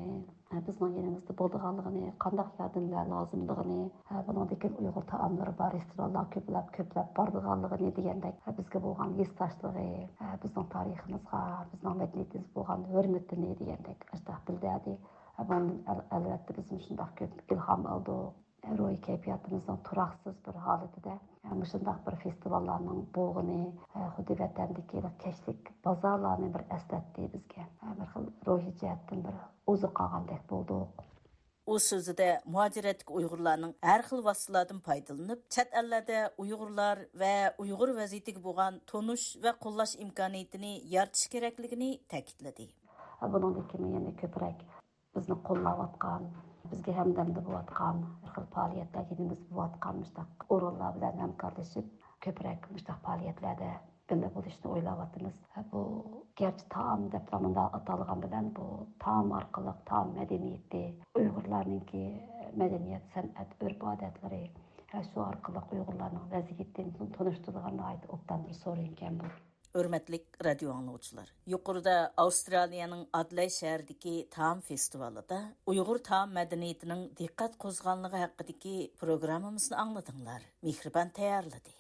ھە، بىزنىڭ يېنىمىزدا بولىدىغانلىقىنى، قانداق ياردەملەر لازىملىقىنى، ھە، بۇنىڭدىن كېيىن ئۇيغۇر تائاملىرى بار رېستورانلار كۆپلەپ، كۆپلەپ بارىدىغانلىقىنى دېگەندەك، ھە، بىزگە بولغان ھېسداشلىقى، ھە، بىزنىڭ تارىخىمىزغا، بىزنىڭ مەدەنىيىتىمىزگە بولغان ھۆرمىتىنى دېگەندەك ئاشۇنداق بىلدۈردى. ھە، بۇنىڭدىن ئەل-، ئەلۋەتتە بىزمۇ شۇنداق كۆپ ئىلھام ئالدۇق. روھىي كەيپىياتىمىزنىڭ تۇراقسىز بىر ھالىتىدە، ھە، مۇشۇنداق بىر فېستىۋاللارنىڭ بولغىنى، ھە، خۇددى ۋەتەندىكى كەچلىك بازارلارنى بىر ئەسلەتتى بىزگە. ھە، بىر خىل روھىي جەھەتتىن بىر ئوزۇق ئالغاندەك بولدۇق. ئۇ سۆزىدە مۇھاجىرەتتىكى ئۇيغۇرلارنىڭ ھەر خىل ۋاسىتىلاردىن پايدىلىنىپ، چەت ئەللەردە ئۇيغۇرلار ۋە ئۇيغۇر ۋەزىيىتىگە بولغان تونۇش ۋە قوللاش ئىمكانىيىتىنى يارىتىش كېرەكلىكىنى تەكىتلىدى. بۇنىڭدىن كېيىن يەنە كۆپرەك بىزنى قوللاۋاتقان، بىزگە ھەمدەمدە بولۇۋاتقان، بىر خىل پائالىيەتلەر يېنىمىزدا بولۇۋاتقان مۇشۇنداق ئورۇنلار بىلەن ھەمكارلىشىپ، كۆپرەك مۇشۇنداق پائالىيەتلەردە بىللە بولۇشنى ئويلاۋاتىمىز. بۇ گەرچە تائام دەپلا مۇنداق ئاتالغان بىلەن، بۇ تائام ئارقىلىق تائام مەدەنىيىتى، ئۇيغۇرلارنىڭكى مەدەنىيەت، سەنئەت، ئۆرپ-ئادەتلىرى، ھە، شۇ ئارقىلىق ئۇيغۇرلارنىڭ ۋەزىيىتىنى تونۇشتۇرىدىغان ناھايىتى ئوبدان بىر سورۇن ئىكەن بۇ. ھۆرمەتلىك رادىيو ئاڭلىغۇچىلار، يۇقىرىدا ئاۋسترالىيەنىڭ ئادېلايد شەھىرىدىكى تائام فېستىۋالىدا ئۇيغۇر تائام مەدەنىيىتىنىڭ دىققەت قوزغىغانلىقى ھەققىدىكى پروگراممىمىزنى ئاڭلىدىڭلار. مېھرىبان تەييارلىدى.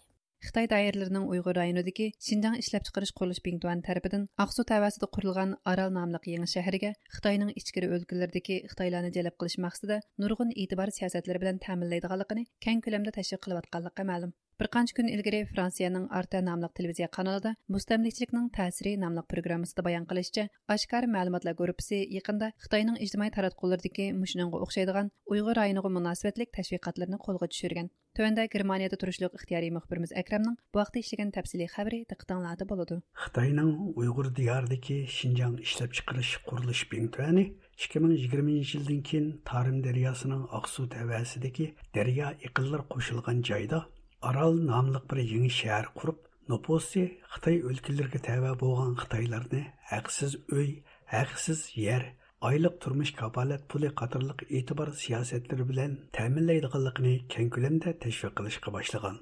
خىتاي دائىرىلىرىنىڭ ئۇيغۇر رايونىدىكى شىنجاڭ ئىشلەپچىقىرىش قۇرۇلۇش بىڭتۈەن تەرىپىدىن ئاقسۇ تەۋەسىدە قۇرۇلغان ئارال ناملىق يېڭى شەھىرىگە خىتاينىڭ ئىچكىرى ئۆلكىلىرىدىكى خىتايلارنى جەلپ قىلىش مەقسىتىدە نۇرغۇن ئېتىبار سىياسەتلىرى بىلەن تەمىنلەيدىغانلىقىنى كەڭ كۆلەمدە تەشۋىق قىلىۋاتقانلىقى مەلۇم. بىر قانچە كۈن ئىلگىرى فرانسىيەنىڭ ئارتە ناملىق تېلېۋىزىيە قانىلىدا مۇستەملىكىچىلىكنىڭ تەسىرى ناملىق پروگراممىسىدا بايان قىلىشىچە، ئاشكارا مەلۇماتلار گۇرۇپپىسى يېقىندا خىتاينىڭ ئىجتىمائىي تاراتقۇلىرىدىكى مۇشۇنىڭغا ئوخشايدىغان ئۇيغۇر رايونىغا مۇناسىۋەتلىك تەشۋىقاتلىرىنى قولغا چۈشۈرگەن. تۆۋەندە گېرمانىيەدە تۇرۇشلۇق ئىختىيارىي مۇخبىرىمىز ئەكرەمنىڭ بۇ ھەقتە ئىشلىگەن تەپسىلىي خەۋىرى دىققىتىڭلاردا بولىدۇ. خىتاينىڭ ئۇيغۇر دىيارىدىكى شىنجاڭ ئىشلەپچىقىرىش قۇرۇلۇش بىڭتۈەنى ئىككى مىڭ يىگىرمىنچى يىلدىن كېيىن تارىم دەرياسىنىڭ ئاقسۇ تەۋەسىدىكى دەريا ئېقىنلىرى قوشۇلغان جايدا ئارال ناملىق بىر يېڭى شەھەر قۇرۇپ، نوپۇسى خىتاي ئۆلكىلىرىگە تەۋە بولغان خىتايلارنى ھەقسىز ئۆي، ھەقسىز يەر، ئايلىق تۇرمۇش كاپالەت پۇلى قاتارلىق ئېتىبار سىياسەتلىرى بىلەن تەمىنلەيدىغانلىقىنى كەڭ كۆلەمدە تەشۋىق قىلىشقا باشلىغان.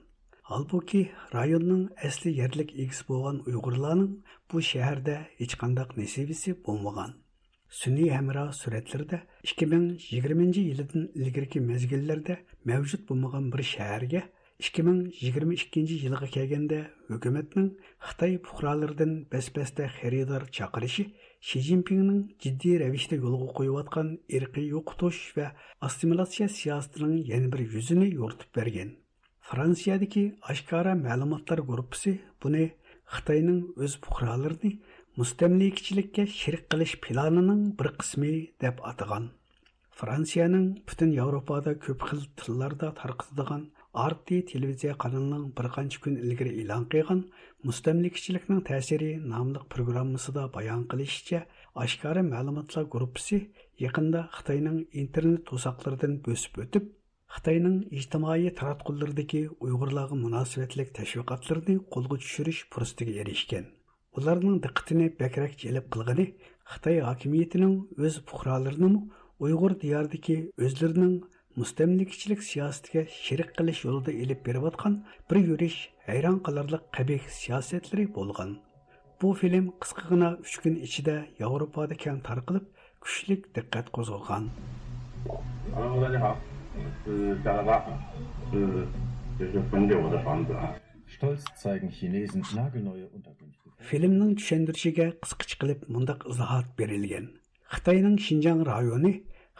ھالبۇكى، رايوننىڭ ئەسلى يەرلىك ئىگىسى بولغان ئۇيغۇرلارنىڭ بۇ شەھەردە ھېچقانداق نېسىۋىسى بولمىغان. سۈنئىي ھەمراھ سۈرەتلىرىدە ئىككى مىڭ يىگىرمىنچى يىلىدىن ئىلگىرىكى مەزگىللەردە مەۋجۇت بولمىغان بىر شەھەرگە ئىككى مىڭ يىگىرمە ئىككىنچى يىلغا كەلگەندە ھۆكۈمەتنىڭ خىتاي پۇقرالىرىدىن بەس-بەستە خېرىدار چاقىرىشى شى جىنپىڭنىڭ جىددىي رەۋىشتە يولغا قويۇۋاتقان ئىرقىي يوقىتىش ۋە ئاسسىمىلياتسىيە سىياسىتىنىڭ يەنە بىر يۈزىنى يورۇتۇپ بەرگەن. فرانسىيەدىكى ئاشكارا مەلۇماتلار گۇرۇپپىسى بۇنى خىتاينىڭ ئۆز پۇقرالىرىنى مۇستەملىكىچىلىككە شېرىك قىلىش پىلانىنىڭ بىر قىسمى دەپ ئاتىغان. فرانسىيەنىڭ پۈتۈن ياۋروپادا كۆپ خىل تىللاردا تارقىتىدىغان ئارتى تېلېۋىزىيە قانىلىنىڭ بىر قانچە كۈن ئىلگىرى ئېلان قىلغان مۇستەملىكىچىلىكنىڭ تەسىرى ناملىق پروگراممىسىدا بايان قىلىشىچە، ئاشكارا مەلۇماتلار گۇرۇپپىسى يېقىندا خىتاينىڭ ئىنتېرنېت توساقلىرىدىن بۆسۈپ ئۆتۈپ، خىتاينىڭ ئىجتىمائىي تاراتقۇلىرىدىكى ئۇيغۇرلارغا مۇناسىۋەتلىك تەشۋىقاتلىرىنى قولغا چۈشۈرۈش پۇرسىتىگە ئېرىشكەن. ئۇلارنىڭ دىققىتىنى بەكرەك جەلپ قىلغىنى خىتاي ھاكىمىيىتىنىڭ ئۆز پۇقرالىرىنىمۇ ئۇيغۇر دىيارىدىكى ئۆزلىرىنىڭ مۇستەملىكىچىلىك سىياسىتىگە شېرىك قىلىش يولىدا ئېلىپ بېرىۋاتقان بىر يۈرۈش ھەيران قالارلىق قەبىھ سىياسەتلىرى بولغان. بۇ فىلىم قىسقىغىنا ئۈچ كۈن ئىچىدە ياۋروپادا كەڭ تارقىلىپ، كۈچلۈك دىققەت قوزغىغان. Hallo, Leute, habt, äh, Sarah, äh, das ist von dir, oder von dir. Stolz zeigen Chinesen nagelneue Unterkünfte. فىلىمنىڭ چۈشەندۈرۈشىگە قىسقىچە قىلىپ مۇنداق ئىزاھات بېرىلگەن. خىتاينىڭ شىنجاڭ رايونى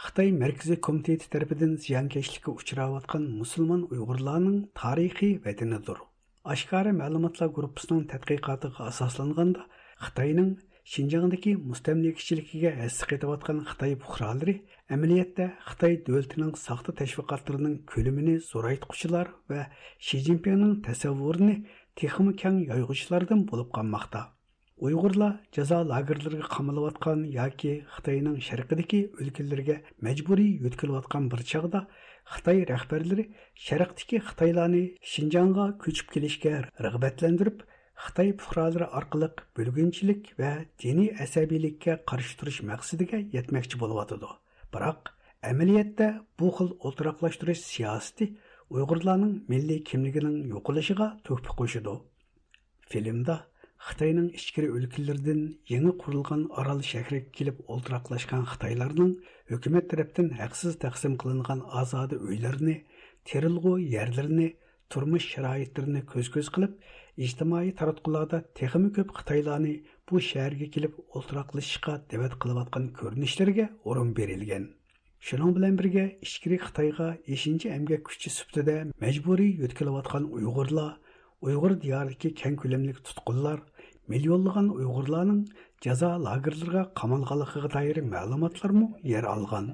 خىتاي مەركىزىي كومىتېتى تەرىپىدىن زىيانكەشلىككە ئۇچراۋاتقان مۇسۇلمان ئۇيغۇرلارنىڭ تارىخىي ۋەتىنىدۇر. ئاشكارا مەلۇماتلار گۇرۇپپىسىنىڭ تەتقىقاتىغا ئاساسلانغاندا، خىتاينىڭ شىنجاڭدىكى مۇستەملىكىچىلىكىگە ھەسسە قېتىۋاتقان خىتاي پۇقرالىرى ئەمەلىيەتتە خىتاي دۆلىتىنىڭ ساختا تەشۋىقاتلىرىنىڭ كۆلىمىنى زورايتقۇچىلار ۋە شى جىنپىڭنىڭ تەسەۋۋۇرىنى تېخىمۇ كەڭ يايغۇچىلاردىن بولۇپ قالماقتا. ئۇيغۇرلار جازا لاگېرلىرىغا قامىلىۋاتقان ياكى خىتاينىڭ شەرقىدىكى ئۆلكىلىرىگە مەجبۇرىي يۆتكىلىۋاتقان بىر چاغدا، خىتاي رەھبەرلىرى شەرقتىكى خىتايلارنى شىنجاڭغا كۆچۈپ كېلىشكە رىغبەتلەندۈرۈپ، خىتاي پۇقرالىرى ئارقىلىق بۆلگۈنچىلىك ۋە دىنىي ئەسەبىيلىككە قارشى تۇرۇش مەقسىتىگە يەتمەكچى بولۇۋاتىدۇ. بىراق، ئەمەلىيەتتە بۇ خىل ئولتۇراقلاشتۇرۇش سىياسىتى ئۇيغۇرلارنىڭ مىللىي كىملىكىنىڭ يوقىلىشىغا تۆھپە قوشىدۇ. فىلىمدا خىتاينىڭ ئىچكىرى ئۆلكىلىرىدىن يېڭى قۇرۇلغان ئارال شەھىرىگە كېلىپ ئولتۇراقلاشقان خىتايلارنىڭ ھۆكۈمەت تەرەپتىن ھەقسىز تەقسىم قىلىنغان ئازادە ئۆيلىرىنى، تېرىلغۇ يەرلىرىنى، تۇرمۇش شارائىتلىرىنى كۆز-كۆز قىلىپ، ئىجتىمائىي تاراتقۇلاردا تېخىمۇ كۆپ خىتايلارنى بۇ شەھەرگە كېلىپ ئولتۇراقلىشىشقا دەۋەت قىلىۋاتقان كۆرۈنۈشلىرىگە ئورۇن بېرىلگەن. شۇنىڭ بىلەن بىرگە، ئىچكىرى خىتايغا ئېشىنچا ئەمگەك كۈچى سۈپىتىدە مەجبۇرىي يۆتكىلىۋاتقان ئۇيغۇرلار، ئۇيغۇر دىيارىدىكى كەڭ كۆلەملىك تۇتقۇنلار، مىليونلىغان ئۇيغۇرلارنىڭ جازا لاگېرلىرىغا قامالغانلىقىغا دائىر مەلۇماتلارمۇ يەر ئالغان.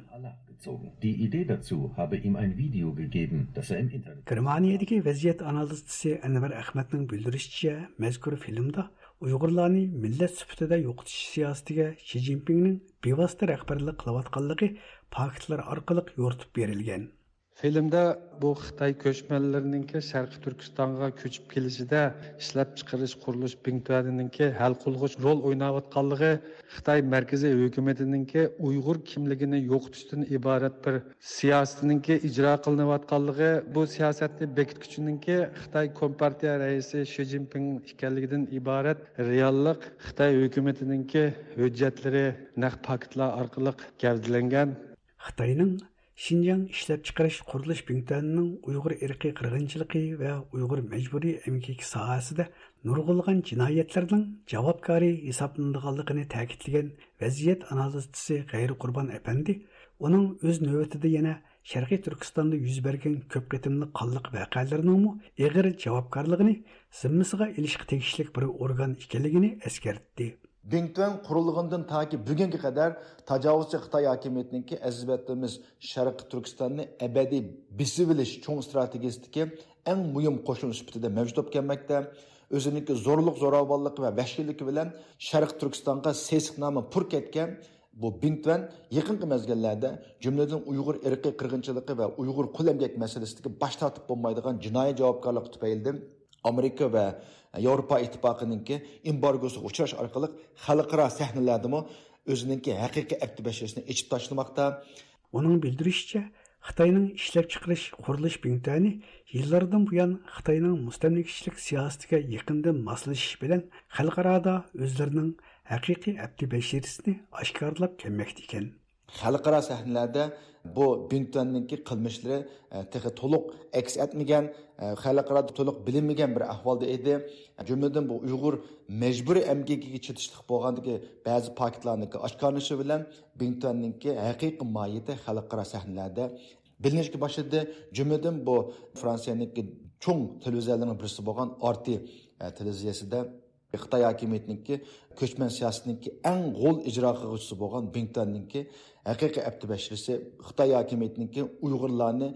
Die Idee dazu habe ihm ein Video gegeben, das er im Internet. گېرمانىيەدىكى ۋەزىيەت ئانالىزچىسى ئەنۋەر ئەخمەتنىڭ بىلدۈرۈشىچە، مەزكۇر فىلىمدا ئۇيغۇرلارنى مىللەت سۈپىتىدە يوقىتىش سىياسىتىگە شى جىنپىڭنىڭ بىۋاسىتە رەھبەرلىك قىلىۋاتقانلىقى پاكىتلار ئارقىلىق يورۇتۇپ بېرىلگەن. فىلىمدا بۇ خىتاي كۆچمەنلىرىنىڭكى شەرقىي تۈركىستانغا كۆچۈپ كېلىشىدە ئىشلەپچىقىرىش قۇرۇلۇش بىڭتۈەنىنىڭكى ھەل قىلغۇچ رول ئويناۋاتقانلىقى، خىتاي مەركىزىي ھۆكۈمىتىنىڭكى ئۇيغۇر كىملىكىنى يوقىتىشتىن ئىبارەت بىر سىياسىتىنىڭكى ئىجرا قىلىنىۋاتقانلىقى، بۇ سىياسەتنى بېكىتكۈچىنىڭكى خىتاي كومپارتىيە رەئىسى شى جىنپىڭ ئىكەنلىكىدىن ئىبارەت رېئاللىق خىتاي ھۆكۈمىتىنىڭكى ھۆججەتلىرى، نەق پاكىتلار ئارقىلىق گەۋدىلەنگەن. خىتاينىڭ شىنجاڭ ئىشلەپچىقىرىش قۇرۇلۇش بىڭتۈەنىنىڭ ئۇيغۇر ئىرقىي قىرغىنچىلىقى ۋە ئۇيغۇر مەجبۇرىي ئەمگىكى ساھەسىدە نۇرغۇنلىغان جىنايەتلەرنىڭ جاۋابكارى ھېسابلىنىدىغانلىقىنى تەكىتلىگەن ۋەزىيەت ئانالىزچىسى غەيرى قۇربان ئەپەندى، ئۇنىڭ ئۆز نۆۋىتىدە يەنە شەرقىي تۈركىستاندا يۈز بەرگەن كۆپ قېتىملىق قانلىق ۋەقەلىرىنىڭمۇ ئېغىر جاۋابكارلىقىنى زىممىسىغا ئېلىشقا تېگىشلىك بىر ئورگان ئىكەنلىكىنى ئەسكەرتتى. بىڭتۈەن قۇرۇلغىنىدىن تاكى بۈگۈنگە قەدەر تاجاۋۇزچى خىتاي ھاكىمىيىتىنىڭكى ئەزىز ۋەتىنىمىز شەرقىي تۈركىستاننى ئەبەدىي بېسىۋېلىش چوڭ ئىستراتېگىيىسىدىكى ئەڭ مۇھىم قوشۇن سۈپىتىدە مەۋجۇت بولۇپ كەلمەكتە. ئۆزىنىڭكى زورلۇق-زوراۋانلىقى ۋە ۋەھشىيلىكى بىلەن شەرقىي تۈركىستانغا سېسىق نامى پۇر كەتكەن بۇ بىڭتۈەن يېقىنقى مەزگىللەردە، جۈملىدىن ئۇيغۇر ئىرقىي قىرغىنچىلىقى ۋە ئۇيغۇر قۇل ئەمگەك مەسىلىسىدىكى باش تارتىپ بولمايدىغان جىنايى جاۋابكارلىقى تۈپەيلىدىن، ئامېرىكا ۋە ياۋروپا ئىتتىپاقىنىڭكى ئېمبارگوسىغا ئۇچراش ئارقىلىق خەلقئارا سەھنىلەردىمۇ ئۆزىنىڭكى ھەقىقىي ئەپتى بەشىرىسىنى ئېچىپ تاشلىماقتا. ئۇنىڭ بىلدۈرۈشىچە، خىتاينىڭ ئىشلەپچىقىرىش قۇرۇلۇش بىڭتۈەنى يىللاردىن بۇيان خىتاينىڭ مۇستەملىكىچىلىك سىياسىتىگە يېقىندىن ماسلىشىش بىلەن خەلقئارادا ئۆزلىرىنىڭ ھەقىقىي ئەپتى بەشىرىسىنى ئاشكارىلاپ كەلمەكتە ئىكەن. خەلقئارا سەھنىلەردە بۇ بىڭتۈەننىڭكى قىلمىشلىرى، ئە، تېخى تولۇق ئەكس ئەتمىگەن، ئە، خەلقئارادا تولۇق بىلىنمىگەن بىر ئەھۋالدا ئىدى. جۈملىدىن بۇ ئۇيغۇر مەجبۇرىي ئەمگىكىگە چېتىشلىق بولغاندىكى بەزى پاكىتلارنىڭكى ئاشكارىلىنىشى بىلەن بىڭتۈەننىڭكى ھەقىقىي ماھىيىتى خەلقئارا سەھنىلەردە بىلىنىشكە باشلىدى. جۈملىدىن بۇ فرانسىيەنىڭكى چوڭ تېلېۋىزىيەلىرىنىڭ بىرسى بولغان ئارتى، ئە، تېلېۋىزىيەسىدە خىتاي ھاكىمىيىتىنىڭكى كۆچمەن سىياسىتىنىڭكى ئەڭ غول ئىجرا قىلغۇچىسى بولغان بىڭتۈەننىڭكى ھەقىقىي ئەپتى بەشىرىسى خىتاي ھاكىمىيىتىنىڭكى ئۇيغۇرلارنى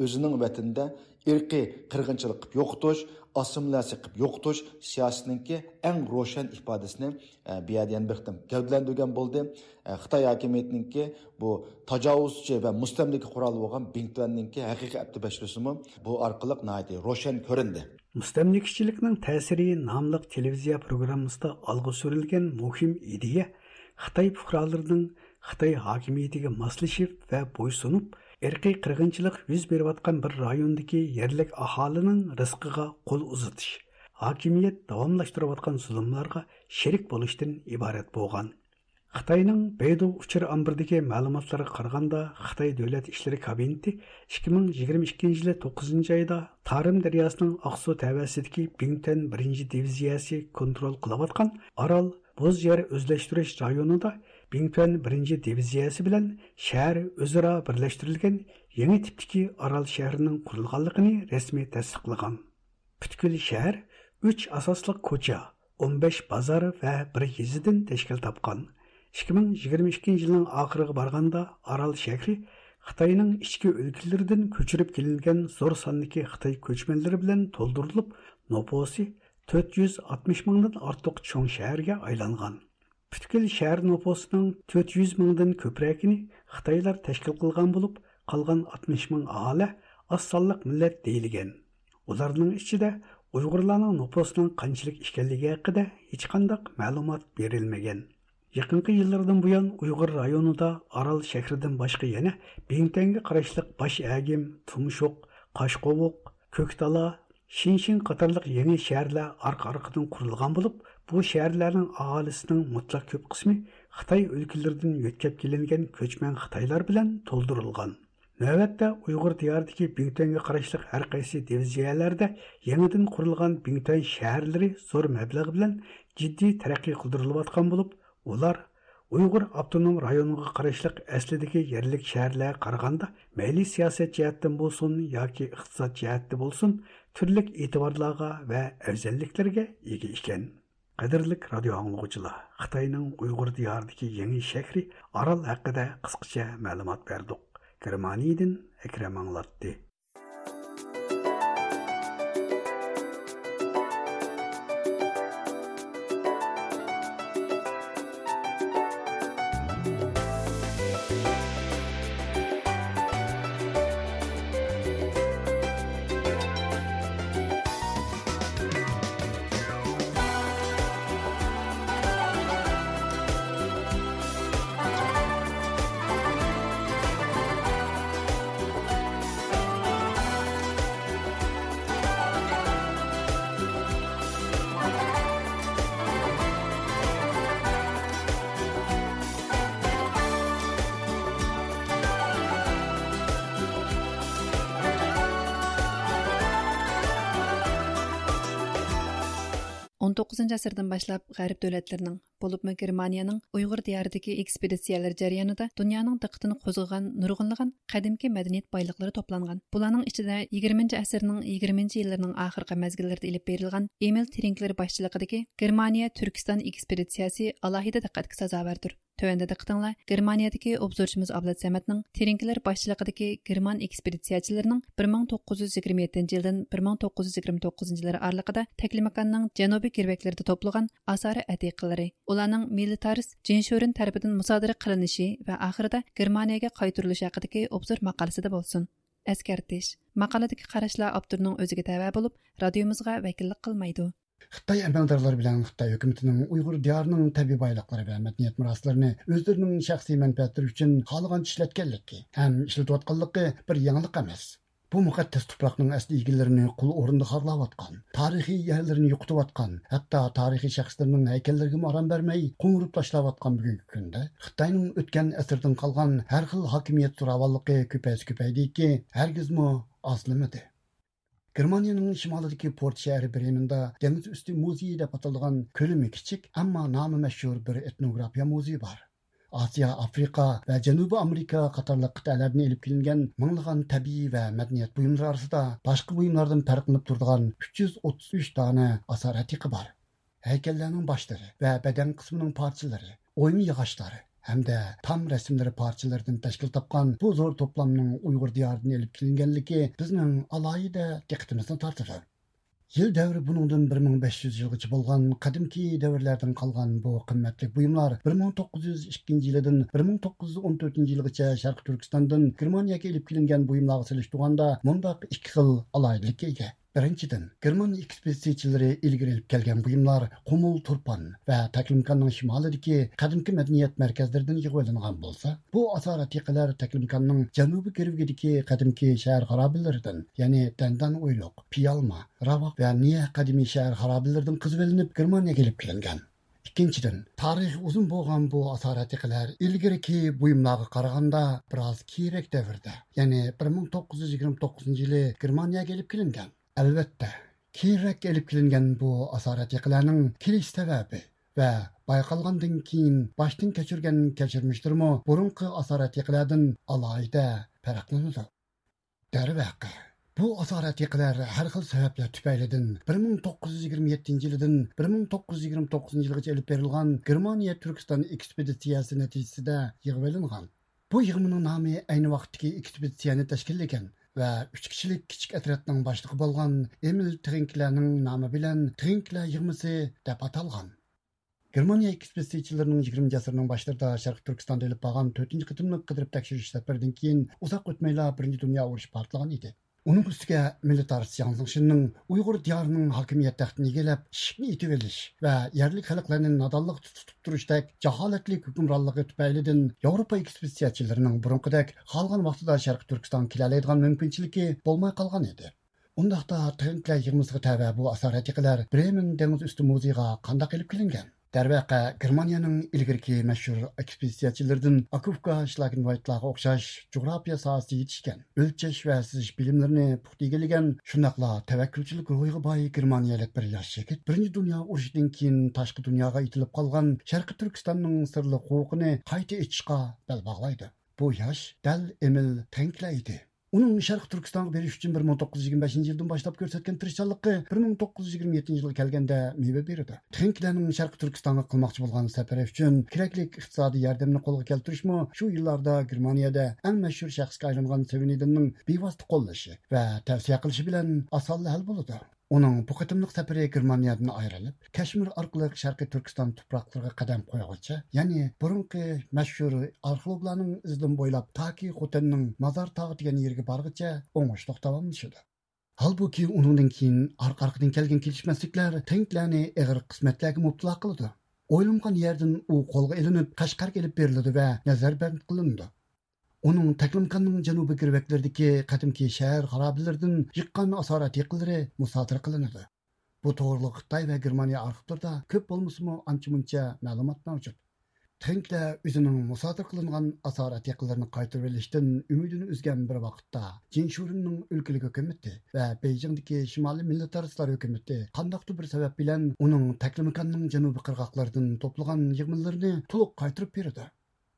ئۆزىنىڭ ۋەتىنىدە ئىرقىي قىرغىنچىلىق قىلىپ يوقىتىش، ئاسسىمىلياتسىيە قىلىپ يوقىتىش سىياسىتىنىڭكى ئەڭ روشەن ئىپادىسىنى، ئە، بۇ يەردە يەنە بىر قېتىم گەۋدىلەندۈرگەن بولدى. ئە، خىتاي ھاكىمىيىتىنىڭكى بۇ تاجاۋۇزچى ۋە مۇستەملىكە قورالى بولغان بىڭتۈەننىڭكى ھەقىقىي ئەپتى بەشلىسىمۇ بۇ ئارقىلىق ناھايىتى روشەن كۆرۈندى. مۇستەملىكىچىلىكنىڭ تەسىرى ناملىق تېلېۋىزىيە پروگراممىسىدا ئالغا سۈرۈلگەن مۇھىم ئىدىيە خىتاي پۇقرالىرىنىڭ خىتاي ھاكىمىيىتىگە ماسلىشىپ ۋە بويسۇنۇپ، ئىرقىي قىرغىنچىلىق يۈز بېرىۋاتقان بىر رايوندىكى يەرلىك ئاھالىنىڭ رىزقىغا قول ئۇزىتىش، ھاكىمىيەت داۋاملاشتۇرۇۋاتقان زۇلۇملارغا شېرىك بولۇشتىن ئىبارەت بولغان. خىتاينىڭ بەيدۇ ئۇچۇر ئامبىرىدىكى مەلۇماتلارغا قارىغاندا، خىتاي دۆلەت ئىشلىرى كابىنېتى ئىككى مىڭ يىگىرمە ئىككىنچى يىلى توققۇزىنچى ئايدا تارىم دەرياسىنىڭ ئاقسۇ تەۋەسىدىكى بىڭتۈەن بىرىنچى دىۋىزىيەسى كونترول قىلىۋاتقان ئارال بوز يەر ئۆزلەشتۈرۈش رايونىدا بىڭتۈەن بىرىنچى دىۋىزىيەسى بىلەن شەھەر ئۆزئارا بىرلەشتۈرۈلگەن يېڭى تىپتىكى ئارال شەھىرىنىڭ قۇرۇلغانلىقىنى رەسمىي تەستىقلىغان. پۈتكۈل شەھەر ئۈچ ئاساسلىق كوچا، ئون بەش بازار ۋە بىر يېزىدىن تەشكىل تاپقان. ئىككى مىڭ يىگىرمە ئىككىنچى يىلنىڭ ئاخىرىغا بارغاندا، ئارال شەھىرى خىتاينىڭ ئىچكى ئۆلكىلىرىدىن كۆچۈرۈپ كېلىنگەن زور ساندىكى خىتاي كۆچمەنلىرى بىلەن تولدۇرۇلۇپ، نوپۇسى تۆت يۈز ئاتمىش مىڭدىن ئارتۇق چوڭ شەھەرگە ئايلانغان. پۈتكۈل شەھەر نوپۇسىنىڭ تۆت يۈز مىڭدىن كۆپرەكىنى خىتايلار تەشكىل قىلغان بولۇپ، قالغان ئاتمىش مىڭ ئاھالە ئاز سانلىق مىللەت دېيىلگەن. ئۇلارنىڭ ئىچىدە ئۇيغۇرلارنىڭ نوپۇسىنىڭ قانچىلىك ئىكەنلىكى ھەققىدە ھېچقانداق مەلۇمات بېرىلمىگەن. يېقىنقى يىللاردىن بۇيان ئۇيغۇر رايونىدا ئارال شەھىرىدىن باشقا يەنە بىڭتۈەنگە قاراشلىق باش ئەگىم، تۇمشۇق، قاشقوۋۇق، كۆكتالا، شىنشىڭ قاتارلىق يېڭى شەھەرلەر ئارقا-ئارقىدىن قۇرۇلغان بولۇپ، بۇ شەھەرلەرنىڭ ئاھالىسىنىڭ مۇتلەق كۆپ قىسمى خىتاي ئۆلكىلىرىدىن يۆتكەپ كېلىنگەن كۆچمەن خىتايلار بىلەن تولدۇرۇلغان. نۆۋەتتە ئۇيغۇر دىيارىدىكى بىڭتۈەنگە قاراشلىق ھەر قايسى دىۋىزىيەلەردە يېڭىدىن قۇرۇلغان بىڭتۈەن شەھەرلىرى زور مەبلەغ بىلەن جىددىي تەرەققىي قىلدۇرۇلۇۋاتقان بولۇپ، ئۇلار ئۇيغۇر ئاپتونوم رايونىغا قاراشلىق ئەسلىدىكى يەرلىك شەھەرلەرگە قارىغاندا، مەيلى سىياسەت جەھەتتىن بولسۇن ياكى ئىقتىساد جەھەتتە بولسۇن، تۈرلۈك ئېتىبارلارغا ۋە ئەۋزەللىكلەرگە ئىگە ئىكەن. قەدىرلىك رادىيو ئاڭلىغۇچىلار، خىتاينىڭ ئۇيغۇر دىيارىدىكى يېڭى شەھىرى ئارال ھەققىدە قىسقىچە مەلۇمات بەردۇق. گېرمانىيىدىن ئەكرەم ئاڭلاتتى. ئون توققۇزىنچى ئەسىردىن باشلاپ غەرب دۆلەتلىرىنىڭ، بولۇپمۇ گېرمانىيەنىڭ ئۇيغۇر دىيارىدىكى ئېكسپېدىتسىيەلىرى جەريانىدا دۇنيانىڭ دىققىتىنى قوزغىغان نۇرغۇنلىغان قەدىمكى مەدەنىيەت بايلىقلىرى توپلانغان. بۇلارنىڭ ئىچىدە يىگىرمىنچى ئەسىرنىڭ يىگىرمىنچى يىللىرىنىڭ ئاخىرقى مەزگىللىرىدە ئېلىپ بېرىلغان ئېمىل ترىنكلېر باشچىلىقىدىكى گېرمانىيە تۈركىستان ئېكسپېدىتسىيەسى ئالاھىدە دىققەتكە سازاۋەردۇر. تۆۋەندە دىققىتىڭلار گېرمانىيەدىكى ئوبزورچىمىز ئابلەت سەمەتنىڭ ترىنكلېر باشچىلىقىدىكى گېرمان ئېكسپېدىتسىيەچىلىرىنىڭ بىر مىڭ توققۇز يۈز يىگىرمە يەتتىنچى يىلدىن بىر مىڭ توققۇز يۈز يىگىرمە توققۇزىنچى يىللار ئارىلىقىدا تەكلىماكاننىڭ جەنۇبىي گىرۋەكلىرىدە توپلىغان ئاسارە ئەتىقىلىرى، ئۇلارنىڭ مىلىتارىست جېن شورېن تەرىپىدىن مۇسادىرە قىلىنىشى ۋە ئاخىرىدا گېرمانىيەگە قايتۇرۇلۇشى ھەققىدىكى ئوبزور ماقالىسىدە بولسۇن. ئەسكەرتىش: ماقالىدىكى قاراشلار ئاپتورنىڭ ئۆزىگە تەۋە بولۇپ، رادىيومىزغا ۋەكىللىك قىلمايدۇ. خىتاي ئەمەلدارلىرى بىلەن خىتاي ھۆكۈمىتىنىڭ ئۇيغۇر دىيارىنىڭ تەبىئىي بايلىقلىرى ۋە مەدەنىيەت مىراسلىرىنى ئۆزلىرىنىڭ شەخسىي مەنپەئەتلىرى ئۈچۈن خالىغانچە ئىشلەتكەنلىكى ھەم ئىشلىتىۋاتقانلىقى بىر يېڭىلىق ئەمەس. بۇ مۇقەددەس تۇپراقنىڭ ئەسلى ئىگىلىرىنى قۇل ئورنىدا خارلاۋاتقان، تارىخىي يەرلىرىنى يوقىتىۋاتقان، ھەتتا تارىخىي شەخسلىرىنىڭ ھەيكەللىرىگىمۇ ئارام بەرمەي قوڭۇرۇپ تاشلاۋاتقان بۈگۈنكى كۈندە خىتاينىڭ ئۆتكەن ئەسىردىن قالغان ھەر خىل ھاكىمىيەت زوراۋانلىقى كۆپەيسە كۆپەيدىكى، ھەرگىزمۇ ئازلىمىدى. گېرمانىيەنىڭ شىمالىدىكى پورت شەھىرى برېمېندا دېڭىز ئۈستى مۇزېيى دەپ ئاتىلىدىغان كۆلىمى كىچىك، ئەمما نامى مەشھۇر بىر ئېتنوگرافىيە مۇزېيى بار. ئاسىيا، ئافرىقا ۋە جەنۇبىي ئامېرىكا قاتارلىق قىتئەلەردىن ئېلىپ كېلىنگەن مىڭلىغان تەبىئىي ۋە مەدەنىيەت بۇيۇملىرى ئارىسىدا باشقا بۇيۇملاردىن پەرقلىنىپ تۇرىدىغان ئۈچ يۈز ئوتتۇز ئۈچ دانە ئاسارە ئەتىقە بار. ھەيكەللەرنىڭ باشلىرى ۋە بەدەن قىسمىنىڭ پارچىلىرى، ئويما ياغاچلار، ھەمدە تام رەسىملىرى پارچىلىرىدىن تەشكىل تاپقان بۇ زور توپلامنىڭ ئۇيغۇر دىيارىدىن ئېلىپ كېلىنگەنلىكى بىزنىڭ ئالاھىدە دىققىتىمىزنى تارتىدۇ. يىل دەۋرى بۇنىڭدىن بىر مىڭ بەش يۈز يىلغىچە بولغان قەدىمكى دەۋرلەردىن قالغان بۇ قىممەتلىك بۇيۇملار بىر مىڭ توققۇز يۈز ئىككىنچى يىلىدىن بىر مىڭ توققۇز يۈز ئون تۆتىنچى يىلغىچە شەرقىي تۈركىستاندىن گېرمانىيەگە ئېلىپ كېلىنگەن بۇيۇملارغا سېلىشتۇرغاندا مۇنداق ئىككى خىل ئالاھىدىلىككە ئىگە. بىرىنچىدىن، گېرمان ئېكسپېدىتسىيەچىلىرى ئىلگىرى ئېلىپ كەلگەن بۇيۇملار قۇمۇل تۇرپان ۋە تەكلىماكاننىڭ شىمالىدىكى قەدىمكى مەدەنىيەت مەركەزلىرىدىن يىغىۋېلىنغان بولسا، بۇ ئاسارەتىقىلەر تەكلىماكاننىڭ جەنۇبىي گىرۋىكىدىكى قەدىمكى شەھەر خارابىلىرىدىن، يەنى دەندان ئويلۇق، پىيالما، راۋاق ۋە نىيە قەدىمىي شەھەر خارابىلىرىدىن قېزىۋېلىنىپ گېرمانىيەگە ئېلىپ كېلىنگەن. ئىككىنچىدىن، تارىخى ئۇزۇن بولغان بۇ ئاسارەتىقىلەر ئىلگىرىكى بۇيۇملارغا قارىغاندا بىراز كېيىنرەك دەۋردە، يەنى بىر مىڭ توققۇز يۈز يىگىرمە توققۇزىنچى يىلى گېرمانىيەگە ئېلىپ كېلىنگەن. ئەلۋەتتە، كېيىنرەك ئېلىپ كېلىنگەن بۇ ئاسارەتىقىلەرنىڭ كېلىش سەۋەبى ۋە بايقالغاندىن كېيىن باشتىن كەچۈرگەن كەچۈرمىشلىرىمۇ بۇرۇنقى ئاسارەتىقىلەردىن ئالاھىدە پەرقلىنىدۇ. دەرۋەقە، بۇ ئاسارەتىقىلەر ھەر خىل سەۋەبلەر تۈپەيلىدىن بىر مىڭ توققۇز يۈز يىگىرمە يەتتىنچى يىلىدىن بىر مىڭ توققۇز يۈز يىگىرمە توققۇزىنچى يىلغىچە ئېلىپ بېرىلغان گېرمانىيە تۈركىستان ئېكسپېدىتسىيەسى نەتىجىسىدە يىغىۋېلىنغان. بۇ يىغمىنىڭ نامى ئەينى ۋاقىتتىكى ئېكسپېدىتسىيەنى تەشكىللىگەن ۋە ئۈچ كىشىلىك كىچىك ئەترەتنىڭ باشلىقى بولغان ئېمىل ترىنكلەرنىڭ نامى بىلەن ترىنكلەر يىغمىسى دەپ ئاتالغان. گېرمانىيە ئېكسپېدىتسىيەچىلىرىنىڭ يىگىرمىنچى ئەسىرنىڭ باشلىرىدا شەرقىي تۈركىستاندا ئېلىپ بارغان تۆتىنچى قېتىملىق قىدىرىپ تەكشۈرۈش سەپىرىدىن كېيىن ئۇزاق ئۆتمەيلا بىرىنچى دۇنيا ئۇرۇشى پارتلىغان ئىدى. ئۇنىڭ ئۈستىگە مىلىتارىست جياڭ زېڭشىننىڭ ئۇيغۇر دىيارىنىڭ ھاكىمىيەت تەختىنى ئىگىلەپ، ئىشىكنى ئېتىۋېلىش ۋە يەرلىك خەلقلەرنى نادانلىقتا تۇتۇپ تۇرۇشتەك جاھالەتلىك ھۆكۈمرانلىقى تۈپەيلىدىن ياۋروپا ئېكسپېدىتسىيەچىلىرىنىڭ بۇرۇنقىدەك خالىغان ۋاقتىدا شەرقىي تۈركىستانغا كېلەلەيدىغان مۇمكىنچىلىكى بولماي قالغان ئىدى. ئۇنداقتا ترىنكلەر يىغمىسىغا تەۋە بۇ ئاسارەتىقىلەر برېمېن دېڭىز ئۈستى مۇزېيىغا قانداق ئېلىپ كېلىنگەن؟ دەرۋەقە، گېرمانىيەنىڭ ئىلگىرىكى مەشھۇر ئېكسپېدىتسىيەچىلىرىدىن ئاكوفكا، شلاگېنۋايتلارغا ئوخشاش جۇغراپىيە ساھەسىدە يېتىشكەن، ئۆلچەش ۋە سىزىش بىلىملىرىنى پۇختا ئىگىلىگەن، شۇنداقلا تەۋەككۈلچىلىك روھىغا باي گېرمانىيەلىك بىر ياش يىگىت بىرىنچى دۇنيا ئۇرۇشىدىن كېيىن تاشقى دۇنياغا ئېتىلىپ قالغان شەرقىي تۈركىستاننىڭ سىرلىق قوۋۇقىنى قايتا ئېچىشقا بەل باغلايدۇ. بۇ ياش دەل ئېمىل ترىنكلەر ئىدى. ئۇنىڭ شەرقىي تۈركىستانغا بېرىش ئۈچۈن بىر مىڭ توققۇز يۈز يىگىرمە بەشىنچى يىلدىن باشلاپ كۆرسەتكەن تىرىشچانلىقى بىر مىڭ توققۇز يۈز يىگىرمە يەتتىنچى يىلغا كەلگەندە مېۋە بېرىدۇ. ترىنكلەرنىڭ شەرقىي تۈركىستانغا قىلماقچى بولغان سەپىرى ئۈچۈن كېرەكلىك ئىقتىسادىي ياردەمنى قولغا كەلتۈرۈشمۇ شۇ يىللاردا گېرمانىيەدە ئەڭ مەشھۇر شەخسكە ئايلانغان سېۋېنىدىننىڭ بىۋاسىتە قوللىشى ۋە تەۋسىيە قىلىشى بىلەن ئاسانلا ھەل بولىدۇ. ئۇنىڭ بۇ قېتىملىق سەپىرى گېرمانىيەدىن ئايرىلىپ، كەشمىر ئارقىلىق شەرقىي تۈركىستان تۇپراقلىرىغا قەدەم قويغۇچە، يەنى بۇرۇنقى مەشھۇر ئارخېئولوگلارنىڭ ئىزىدىن بويلاپ تاكى خوتەننىڭ مازار تاغى دېگەن يېرىگە بارغىچە ئوڭۇشلۇق داۋاملىشىدۇ. ھالبۇكى، ئۇنىڭدىن كېيىن ئارقا-ئارقىدىن كەلگەن كېلىشمەسلىكلەر ترىنكلەرنى ئېغىر قىسمەتلەرگە مۇپتىلا قىلىدۇ. ئويلىمىغان يەردىن ئۇ قولغا ئېلىنىپ، قەشقەرگە ئېلىپ بېرىلىدۇ ۋە نەزەربەند قىلىنىدۇ. ئۇنىڭ تەكلىماكاننىڭ جەنۇبىي گىرۋەكلىرىدىكى قەدىمكى شەھەر خارابىلىرىدىن يىغقان ئاسارەتىقىلىرى مۇسادىرە قىلىنىدۇ. بۇ توغرىلىق خىتاي ۋە گېرمانىيە ئارخىپلىرىدا كۆپ بولمىسىمۇ ئانچە-مۇنچە مەلۇمات مەۋجۇت. ترىنكلەر ئۆزىنىڭ مۇسادىرە قىلىنغان ئاسارەتىقىلىرىنى قايتۇرۇۋېلىشتىن ئۈمىدىنى ئۈزگەن بىر ۋاقىتتا، جىن شۇرېننىڭ ئۆلكىلىك ھۆكۈمىتى ۋە بېيجىڭدىكى شىمالىي مىللەتئارىسلار ھۆكۈمىتى قانداقتۇر بىر سەۋەب بىلەن ئۇنىڭ تەكلىماكاننىڭ جەنۇبىي قىرغاقلىرىدىن توپلىغان يىغمىلىرىنى تولۇق قايتۇرۇپ بېرىدۇ.